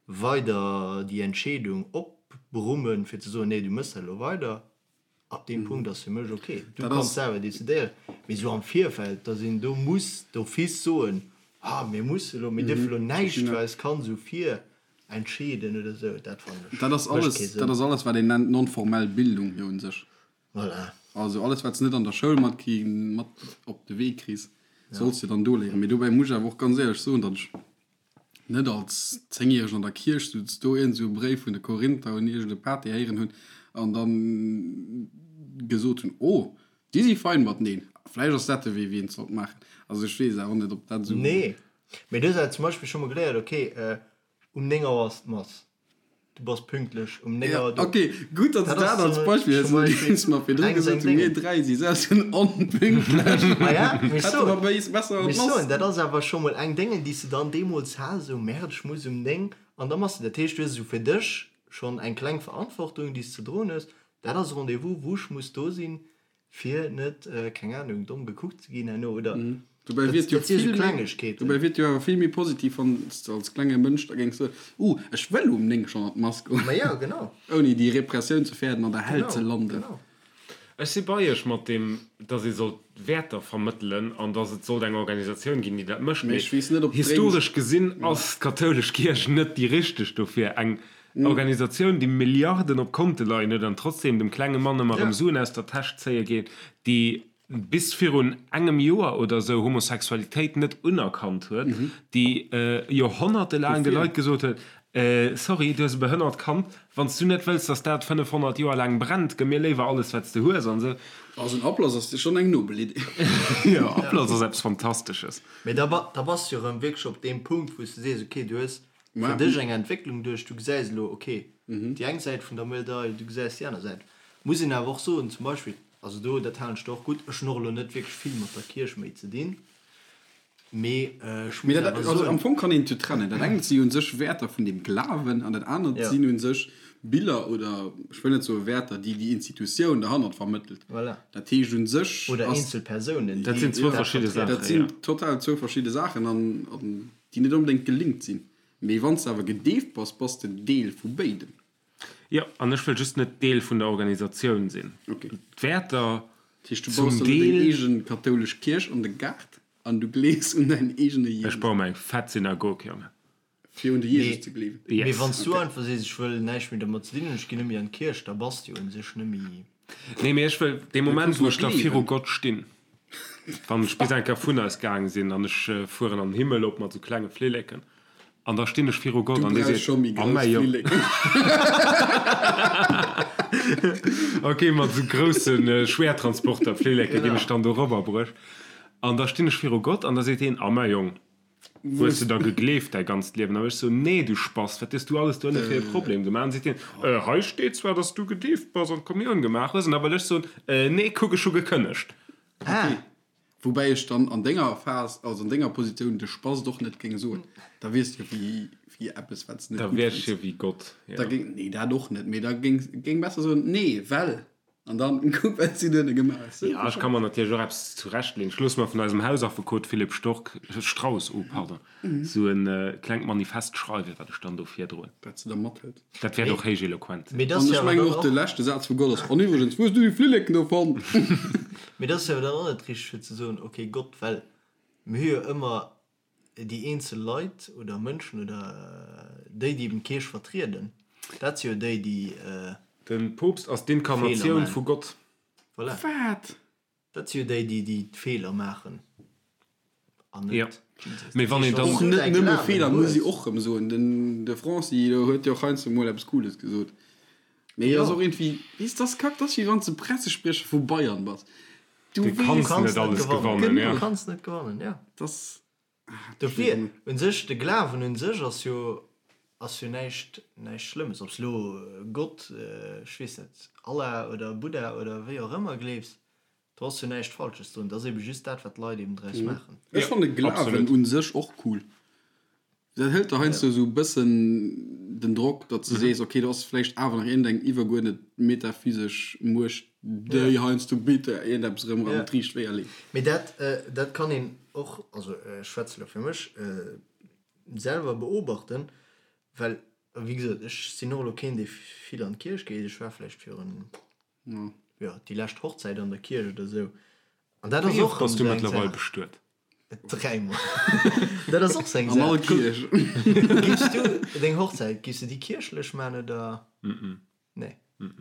weider déi Entscheedung opbrummen, fir ze soen, nee, du méchs dat elo weider. Ab deem Punkt ass fir mech ok, du
Dat
kanns
ass.
selwer decidéieren. Mee esou am Virfeld, dass een do muss d'office soen, ah mir musse elo, mir dierfe elo näischt fir eist Kand esou virentscheeden oder esou, dat fannen ech,
Dat ass
mécht
alles,
kee
dat
Sënn.
ass alles, wat een nennt non-formell Bildung jo un sech.
Voilà.
Also alles, wat s net an der Schoul matkri mat op de Wee kriss, solls de dann do léieren. Mee dobäi muss ech awer och ganz éierlech soen, datt ech net als Zéngjäregen an der Kierch souz, do iergend esou e Bréif vun de Korinther un iergend e Pater héieren hunn an da gesot hunn, oh, déi si fein mateneen, vläicht ass dat de Wee, wéi een et sollt maachen. Also ech weess awer net, ob dat esou.
Nee, mee du hues awer zum Beispill scho mol geléiert, okay, um 9 Auer ass d'Mass. Du bass pünktlech um 9 Auer do.
Ok, gutt, datt s
Dat
dat
ass
als
zum
Beispill hues,
zum
well
Beispill
s mer virdru
eng
gesot
seng
hunn, mir
Déngen.
3 si selbst un onpünktlech.
Ma ja, mee ech
Hätte mer
soen,
bei is besser
mee
an
ech soen,
d'Mass.
dat ass awer scho mol eng Déngen, déi s de dann deemools has, esou, Merde, ech muss um 9 an da machs de. Dat heescht, du hues esou fir dech schonn eng kleng Verantwortung, déi s ze droen hues. Dat ass e Rendez-vous, wou ech muss do sinn, Fir net, keng Ahnung, domm gekuckt ze ginn herno, oder?
Dobäi wier et jo
Dat si sou
vill méi,
Klengegkeeten.
dobäi wier et jo awer vill méi positiv, wann s de als klenge Mënsch da géings soen, Uh, ech wëll um 9 schonn an d'Mass goen.
Ma jo, genau.
Ouni déi Repressioun ze fäerten, an der Hell
Genau,
ze landen.
genau.
Ech si bei iech mat deem, dass ee sollt Wäerter vermëttelen an dass et sollt eng Organisatioun ginn, déi dat mécht.
Mee
Mee
ech weess net, ob d'Dréim.
historesch gesinn ass d'kathoulesch Kierch net déi richteg dofir. Eng Organisatioun, déi Milliarden op Konte leien huet an trotzdem dem klenge Mann ëmmer erëm Suen aus der Täsch zéie geet, déi bis virun engem Joer oder esou Homosexualitéit net unerkannt huet, déi joerhonnertelaang de
Dofir.
Leit gesot huet, Sorry, du hues e behënnert Kand, wann s du net wëlls, dass dat 500 Joer laang brennt, gëmm mir léiwer alles, wat s de hues an esou.
Also en Ablass ass schonn eng nobel Idee.
Jo, Ablass ass eppes Fantastesches.
Mee da bass de jo erëm wierklech op deem Punkt, wou s de sees, okay, du hues fir dech eng Entwécklung duerch, du gesäis elo, okay, déi eng Säit vun der Medail, du gesäis déi aner Säit. Muss een awer och soen, zum Beispill, also do, dat halen ech der och gutt, ech hunn och elo net wierklech vill mat der Kierch méi ze dinn, mee ech
Mee
muss
dat,
awer
also am
soen,
Fong kann een et jo trennen. Dat engt si u sech Wäerter vun dem Glawen an dat anert
Ja.
sinn u sech Biller oder, ech wëll net soe Wäerter, déi déi Institutioun derhannert vermëttelt.
Voilà.
Dat heescht u sech
Oder
ass.
eenzel Persounen,
Dat
déi
sinn zwou
dat
verschidde
vertrieden.
Dat
Saachen, jo.
sinn total zwou verschidde Saachen an, an déi net onbedéngt gelinkt sinn. Mee wann s de awer gedeeft bass, bass de Deel vu béidem.
Jo, an ech wëll just net Deel vun der Organisatioun sinn.
Okay.
D'Wäerter
Dat heescht, du
zum
baus der elo deng
Deel.
eegen kathoulesch Kierch an de Gaart an du gleefs un däin eegene
Ech
Jesus.
baue mer eng fett Synagog, Jongen.
Fir un de Jesus
Mee,
ze gleewen.
mee
Yes.
wann s du
Okay.
einfach sees, ech wëll näischt méi domat ze dinn hunn, ech ginn net méi an d'Kierch, da bass de jo un sech net méi.
Nee, mee ech wëll dee
Da
Moment,
kanns
wou
du
ech da viru
gleewen.
Gott stinn, wann ech bis eng Kéier vun eis gaang sinn an ech fueren an den Himmel op mat sou klenge Flilleken, an da stinn ech viru Gott
Du
an dee
brauchs
seet,
scho méi
Oh
grouss
mäi Jong.
Flilleken.
Ok, mat sou grousse Schwertransporter-Flilleke ginn ech dann do erobberbruecht. An da stinn ech viru Gott an da seet hien, Oh mäi Jong, hues de da gegleeft däi ganzt Liewen? An ech sou, Nee, du Spass, wat hues du alles do ënne fir e Problem gemaach? An seet hien, Äh, hei steet zwar, dass du gedeeft bass an d'Kommioun gemaach hues. An da wëll ech soen, Äh, nee, kuck, ech hu gekënnegt.
Ok, woubäi ech dann an denger Phas, also an denger Positioun, de Spast och net géing soen. Da wiers de jo wéi, wéi eppes, wat s de net
Da
gutt
wier ech
fënns.
jo wéi Gott,
Da
jo.
géing, nee, dat och net, mee da géing, géing besser soen, Nee, well. An dann kuck wat si duerno gemaach huet.
Ja, ech ka mer natierlech och eppes zurechtleeën. Ech loosse mer vun eisem Hausaffekot Philippe Stork, Strauss, oh pardon, esou e klengt Manifest schreiwen, wat ech dann do virdroen.
Wat se da mathëlt.
Dat wäert och héich eloquent sinn.
Mee dat
An
ass jo
ech
awer
mengen
dann
och de
och.
leschte Saz vu Gott ass, An iwwregens, wou hues du déi Flilleken do fonnt?
Mee dat ass jo awer dann och net richteg fir ze soen, ok Gott, well mir hu jo ëmmer déi eenzel Leit oder Mënschen oder déi, déi eben d'Kierch vertrieden, dat si jo déi, déi
De Poopst ass
Feeler
d'Inkarnatioun
maachen.
vu Gott.
Voilà.
Wat?
Dat si jo déi, déi déi d'Feeler maachen an
Jo.
net Jesus.
Mee wann een dann.
Och net nëmme Feeler, muss ee och rëm soen. Den de Franci do huet jo och heiansdo mol eppes Cooles gesot. Mee ass och iergendwéi, weess, dat ass kack, dat ass wéi wann s de Pressespriecher vu Bayern bass. Du
Du
weess.
kanns net alles gewannen,
Du
jo.
kanns net gewannen, jo.
Dat ass.
Dofir, un sech, de Glawen un sech ass jo, ass jo näischt, näischt Schlëmmes. Ob s lo Gott, ech weess net, Allah oder Buddha oder wéi och ëmmer gleefs, do ass jo näischt Falsches drun. Et ass ebe just dat, wat d'Leit eben draus maachen.
Ech fannen de Glawen un sech och cool. Dat hëlt der heiansdo esou e bëssen den Drock, datt s de sees, ok, do ass vläicht awer nach iergendeng iwwerguerdnet metaphysesch Muecht, déi heiansdo bitte iergendeppes erëm an d'riicht Wéier leet.
Mee dat, dat kann een och, also ech schwätze elo fir mech, selwer beobachten, well wéi gesot, ech sinn och elo keen, dee vill an d'Kierch geet. Ech war vläicht virun, jo, déi lescht Hochzäit an der Kierch oder esou. An dat ass
Wéi oft
och
bass
erëm
du
esou eng
mëttlerweil
Saach.
bestuet?
Dräimol. Dat ass och seng
An all
Saach.
Kierch.
Giffs du deng Hochzäit, giffs du déi kierchlech man oder? Nee.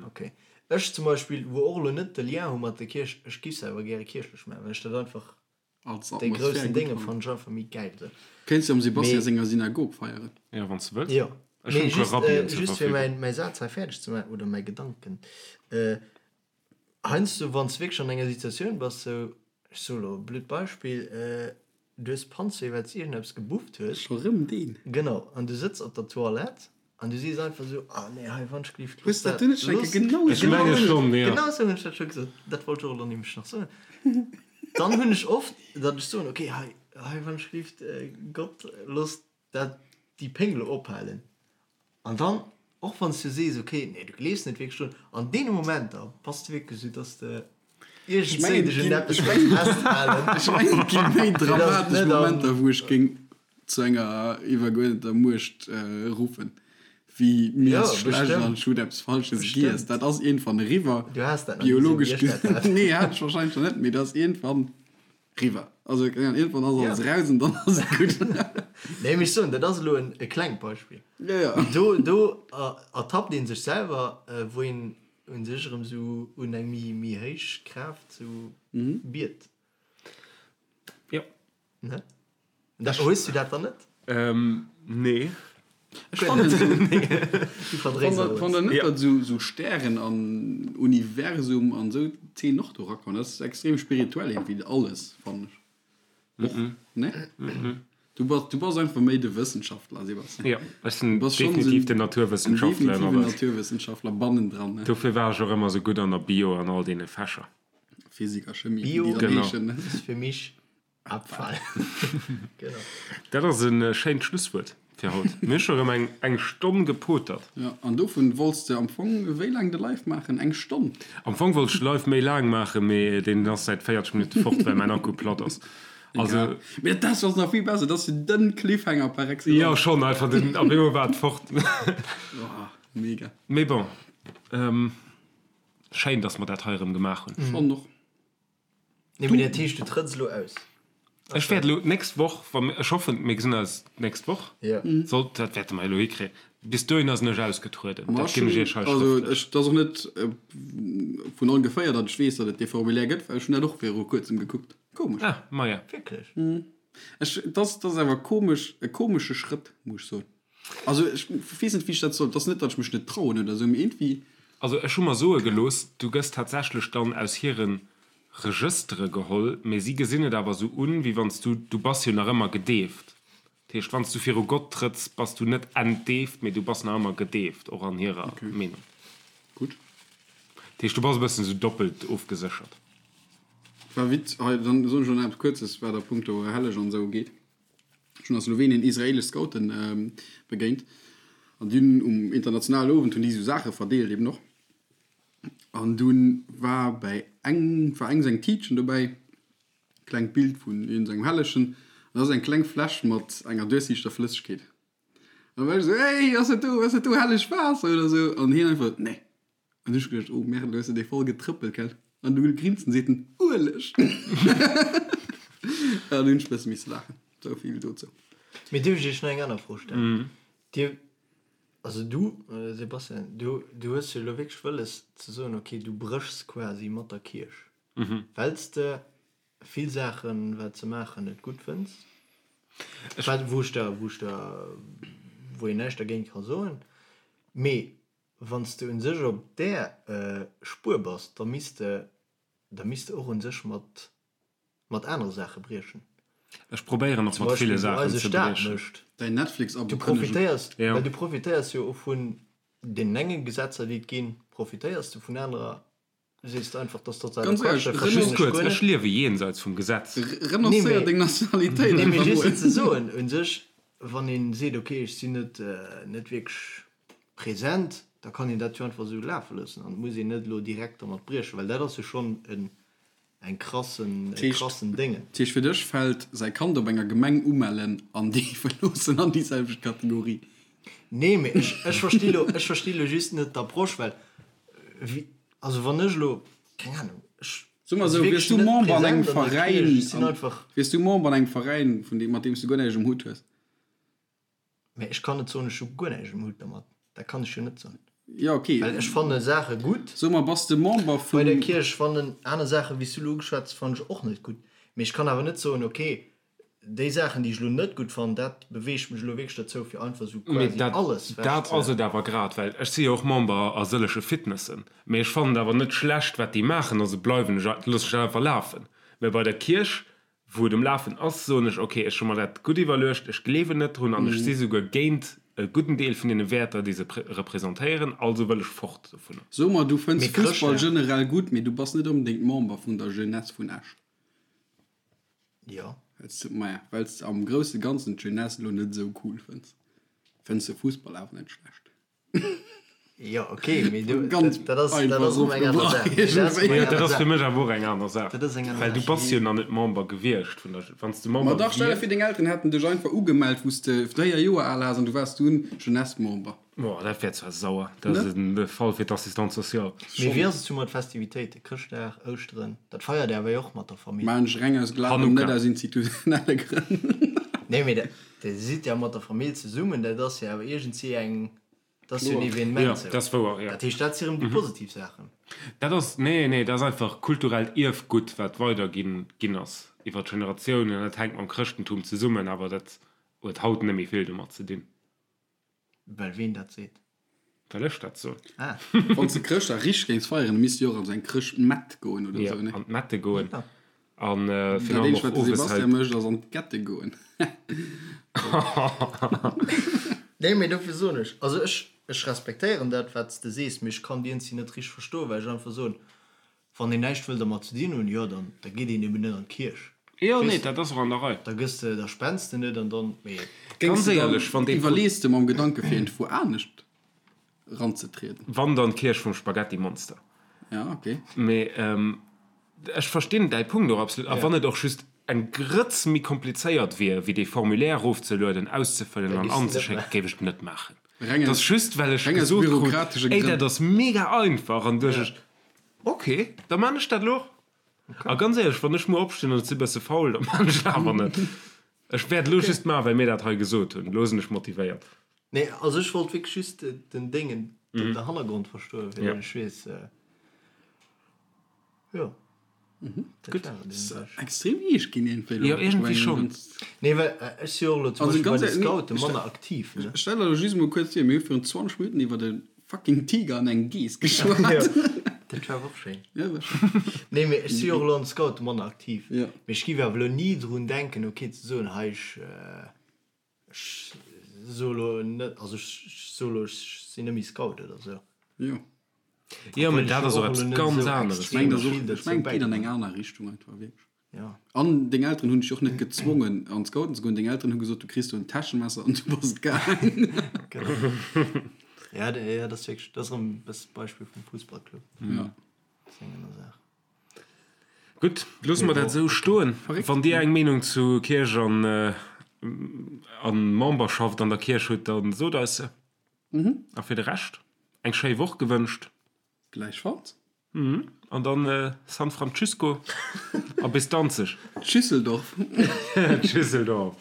Ok. Ech zum Beispill, wou och elo net de Lien hu mat der Kierch, ech giff se awer gäre kierchlech man, well ech dat einfach,
Als
dee
Atmosphär
groussen
gutt
Dénge
fannen.
fannen ech einfach méi gäil esou.
Kéints du am Sebastian
Mee.
senger Synagog feieren.
Jo, wann s de wëlls.
Jo.
Ech hunn
Mee
e puer
just,
Rabbien zur
just fir
Verfügung.
mäin, mäi Saz hei fäerdeg ze man, oder mäi Gedanken, Heiansdo wann s de wierklech an enger Situatioun bass, sou, ech soe lo e blöd Beispill, du hues Panzwéi well s de iergendeppes gebufft hues.
Scho rëm deen?
Genau, an du sëtz op der Toilette an du sees einfach sou, ah nee, hei wann ech gelift,
Hues
looss
dat
dat,
du net schon eng
looss.
Kéier genau
Ech
esou
menge
gesot?
schonn, jo.
Genau sou hunn ech dat scho gesot, dat wollt ech och elo nämlech nach soen. Dann hunn ech oft, datt ech soen, okay, hei, hei wann ech gelift, Gott, looss dat déi Péng lo ophalen. An dann, och wann s du sees, ok, nee, du gleefs net wierklech drun, an deene Momenter bass de wierklech esou, dass de iergendswéi dech un eppes géings festhalen.
Ech mengen, et gi méi
Fir dass et
dramatesch
net an.
Momenter, wou ech géing zu enger iwwergeuerdeter Muecht ruffen, Wéi mir
Jo,
ass schlecht
bestimmt.
an ech hunn eppes Falsches giess.
Bestimmt.
Dat ass iergendwann eriwwer.
Du has dat nach ni esou
Biologesch
wéi ech dat hat.
gesinn. Nee, hat ech wahrscheinlech nach net, mee dat ass iergendwann eriwwer. Also keng Ahnung, iergendwann ass
Ja.
alles raus an dann ass et gutt.
Nee, mee ech soen, dat ass elo en e klengt Beispill.
Ja, ja.
Mee do, do ertappt ee sech selwer, wou een u sech erëm esou un eng méi, méi héich Kraaft sou biet.
Jo.
Ne? Da, hues du dat dann net?
Ähm, nee.
Ech fannen esou,
Du verdréis alles.
Fannt der net,
Ja.
datt esou, esou Stären an Universum an esou Themen och do erakommen? Dat ass extrem spirituell iergendwéi alles, fannen ech. Och, ne? Du bass, du bass einfach méi de Wëssenschaftler, Sebastian.
Ja, ech sinn
Du bass schonn
definitiv
esou
den
en
Naturwëssenschaftler
definitiven
ënner eis.
Naturwëssenschaftler bannendran, ne?
Dofir war ech och ëmmer esou gutt an der Bio an all deene Fächer.
Physik a Chemie, wéi
Bio
déi dann
Genau.
heeschen, ne?
ist für mich Abfall. Genau.
Dat ass e schéint Schlusswuert fir haut. Mir hu scho rëm eng eng Stonn gepotert.
Ja, an dovun wollts de am Fong wéi laang de Live maachen? Eng Stonn?
Am Fong wollt ech de Live méi laang maachen, mee deen ass säit 40 Minutte fort, well mäin Akku platt ass. Also.
Egal. Mee dat ass nach vill besser, dat ass jo den Cliffhanger par excellence.
Jo, schonn einfach den, op eemol war et fort.
Oh, mega.
Mee bon, schéin, dass mer dat hei erëm gemaach hunn.
Schonn och.
Nee, mee dat heescht, du trëtts elo aus?
Ech wäert elo d'nächst Woch, wa mir, ech hoffen, mir gesinn eis d'nächst Woch,
Ja.
sollt, dat wäerte mer elo hikréien, bis dohinner sinn ech ausgetrueden.
Ma
Dat
ech
ginn ech
hunn,
Iech hei
also
schrëftlech.
ech, dat ass och net vun ongeféier, datt ech weess, datt et dee Formulaire gëtt, well ech hunn dat och viru kuerzem gekuckt. Komesch.
Ah, maja.
Wierklech?
Ech, dat ass, dat ass awer komesch, e komesche Schrëtt, muss ech soen. Also ech weess net, wéi ech dat soll, et ass net, datt ech mech net trauen oder esou, mee iergendwéi.
Also ech hu mer soe gelooss, du gëss tatsächlech dann aus hire Regëstere geholl, mee si gesinn et awer esou un, wéi wann s du, du bass jo nach ëmmer gedeeft. Dat heescht, wann s du viru Gott trëtts, bass du net entdeeft, mee du bass nach ëmmer gedeeft, och an hirer Meenung.
Gutt.
Dat heescht, du bass e bëssen esou doppelt ofgeséchert.
War Witz, hei, dann soen ech elo nach eppes Kuerzes, wat a punkto Helleg an esou ugeet. Ech hunn a Slowenien israelesch Scouten begéint an déi hunn um internationalen Owend hunn déi esou Saache verdeelt eben och. An dunn war bäi eng war eng seng Tiitchen dobäi, klengt Bild vun iergendengem Hellegen, an da ass eng kleng Fläsch mat enger duerchsiichter Flëssegkeet. An da war ech esou, Hey, ass dat do, ass dat do hellegt Waasser oder esou? An hien einfach, Nee. An ech geduecht, oh merde, lo hues de dee voll getrëppelt, gell? An du grinst an seet en, Ueleg! An hunn ech bësse misse laachen. Sou vill dozou.
Mee dierf ech iech nach eng aner Fro stellen? Dir, also du, Sebastian, du, du hues jo elo wierklech wëlles ze soen, okay, du bréchs quasi mat der Kierch, well s de vill Saachen, wat se maachen, net gutt fënns, wat, wou ech der, wou ech der, wou een näischt dergéint ka soen. Mee Wann s de un sech op där Spuer bass, da misst de, da misst de och un sech mat, mat anere Saache briechen.
Ech probéieren och
Zum
mat ville
Beispill wou
Saachen
eise
ze
Staat
briechen.
mécht.
Däin Netflix-Abo
Du
kënnegen.
profitéiers,
Ja.
well du profitéiers jo och vun deenen enge Gesetzer, déi et ginn, profitéiers de vun anerer Sees de einfach, dass totaler
Ganz
Quatsch,
ehrlech,
dat
Just
verstinn ech
kuerz,
guer
ech
net.
liewe jenseits vum Gesetz.
Renoncéier deng Nationalitéit
Nee, mee
einfach
just
mol.
ze soen, un sech, wann een seet, okay, ech sinn net, net wierklech present, da kann een dat jo einfach esou lafe loossen an et muss een net elo direkt dermat briechen, well dat ass jo schonn en, eng krassen, e krassen Déngen.
Dat heescht, fir dech fält säi Kand op enger Gemeng umellen an deefe loossen an déi selwecht Kategorie?
Nee, mee ech, ech versti lo, ech versti lo just net d'Approche, well wéi, also wann ech elo, keng Ahnung, ech
Soe mer
si
esou, wiers
wierklech
du
net
Member an engem
present an der
Veräin,
Kierch, ech sinn einfach.
wiers du Member an engem Veräin, vun deem, mat deem s du guer näischt um Hutt hues?
Mee ech kann net soen, ech hu guer näischt um Hutt dermat, dat kann ech jo net soen.
Jo, okay.
Well ech fanne Saache gutt.
Soe mer, bass de Member
Bei der
vum.
Kierch fannen aner Saachen, wéi s du elo ugeschwat hues, fannen ech och net gutt. Mee ech kann awer net soen, okay, Déi Saachen, déi ech elo net gutt fannen, dat beweegt mech elo wierklech dozou, fir einfach esou
Mee
quasi
dat,
alles
dat
wech
ass
ze.
et awer grad, well ech si jo och Member a sëllege Fitnessen, mee ech fannen et awer net schlecht, wat déi maachen, also bleiwen ech, loosse ech dat einfach lafen. Mee bei der Kierch, wou et um Lafen ass, soen ech, okay, ech hu mer dat gutt iwwerluecht, ech gleewen net drun an ech si souguer géint e gudden Deel vun deene Wäerter, déi se representéieren, also wëll ech fort dovunner.
So mer, du fënns
Mee
Fussball
Chrëschtdag.
generell gutt, mee du bass net onbedéngt Member vun der Jeunesse vun Esch.
Jo.
Wells de, maja, wells de am grousse Ganzen d'Jeunesse elo net esou cool fënns, fënns de Fussball awer net schlecht.
Jo, ok, mee du, Ganz dat ass, dat ass erëm eng aner Saach. Nee, dat ass erëm eng
Jo, dat
aner
ass fir
Saach.
mech awer och eng aner Saach.
Dat ass eng aner
Well du
Saach.
bass jo nach net Member gewiescht vun der, wann s de
Ma
Member
dach, stell der
wiers.
vir, deng Elteren hätten dech einfach ugemellt, wou s de 4 Joer al ass an du waars dunn Jeunesse-Member.
Boah, dat wär zwar sauer. Dat ass
Ne?
en Fall fir d'Assistante sociale.
Mee
Schonn.
wéi ass et sou mat Festivitéiten? Chrëschtdag, Ouschteren, dat feiert Dir awer jo och mat der Famill?
Maachen ech reng aus Glawen, net
Hanukka.
aus institutionelle Grënn.
Nee, mee dat, Dir sidd ja mat der Famill zesummen, dat ass jo awer iergendwéi eng, dat ass jo en
Kloer.
Evenement
Jo,
sou.
dat ass wouer, jo.
Dat heescht, dat si rëm déi positiv Saachen.
Dat ass, nee, nee, dat ass einfach kulturellt Ierfgutt, wat weiderginn ginn ass iwwer d'Generatiounen. Dat hänkt mam Chrëschtentum zesummen, awer dat huet haut net méi vill domat ze dinn.
Well ween dat seet.
Well ech dat soen.
Ah.
Wann s de Chrëschtdag richteg géings feieren, da misst de jo och an esou eng Chrëschtmett goen oder
Jo,
esou, ne?
an d'Mette goen. An
Dat
virun allem
eenzegt,
och
wat de
owes
Sebastian
halt.
mécht, ass an d'Gette goen.
Nee, mee dofir soen ech, also ech, ech respektéieren dat, wat s de sees, mee ech kann déi eenzel net richteg verstoen, well ech einfach soen, Wann een näischt wëll dermat ze dinn hunn, jo, dann da geet een eben net an d'Kierch.
Jo, nee,
Weess de?
dat ass och an der Rei.
Da gëss de, da spends de net an dann, mee.
Géings
Ganz
de dann,
éierlech, wann dee Pro.
iwwerlees de mam Gedanke fir iergendwou anescht ranzetrieden?
Wann, dann d'Kierch vum Spaghettimonster.
Ja, okay.
Mee ech verstinn däi Punkt och absolut. A wann et och just eng Grëtz méi komplizéiert wier, wéi dee Formulaire erofzelueden, auszefëllen
Da
an
giss de net
anzeschécken,
maachen.
géif ech et net maachen.
Reng
Et
aus,
ass just, well ech
reng aus
gesot krut,
bürokratesche
Ey, dat
Grënn.
ass mega einfach, an duecht ech, Ok, da man ech dat elo och. A ganz éierlech, wann ech muer opstinn an et si bësse faul, da man ech et awer net. Ech wäert elo just maachen, well mir dat hei gesot hunn. Elo sinn ech motivéiert.
Nee, also ech wollt wierklech just den Déngen, den Hannergrond verstoen, fir datt ech weess, jo.
Gutt.
Extrem eescht ginn iergendwéi elo.
Jo, iergendwéi schonn.
Nee, well ech si jo och elo zum
Also
Beispill bei
ganz
de
ehrlech,
Scoute
nee,
manner aktiv, ne?
Stell der elo just emol kuerz vir, mir hu virun 20 Minutten iwwer e fucking Tiger an eng Geess geschwat.
Dat war awer och schéin.
Ja, war schéin.
Nee, mee ech si jo och elo an de Scoute manner aktiv.
Ja.
Mee ech géif awer elo ni drun denken, ok, ze soen, hei, ech, ech soe elo net, also ech soe elo, ech sinn net méi Scout oder esou.
Jo.
Jo, mee dat ass och eppes ganz aneres.
Ech mengen, dat ass och, ech mengen, et geet an eng aner Richtung einfach, wierklech. An deng Elteren hunn dech och net gezwongen, an d'Scouten ze goen. Deng Elteren hu gesot, du kriss do en Täschemesser an du bass et gaangen.
Genau. Ja, ja, dat ass wierklech, dat ass erëm e bësse d'Beispill vum Fussballclub.
Ja.
Dat ass eng aner Saach.
Gutt, loosse mer dat esou stoen. Wann Dir eng Meenung zu Kierch an a Memberschaft an der Kierch hutt, da sot eis se. A fir de Rescht eng schéi Woch gewënscht.
Gläichfalls.
An dann San Francisco a bis Danzeg.
Tschüsseldorf.
Tschüsseldorf.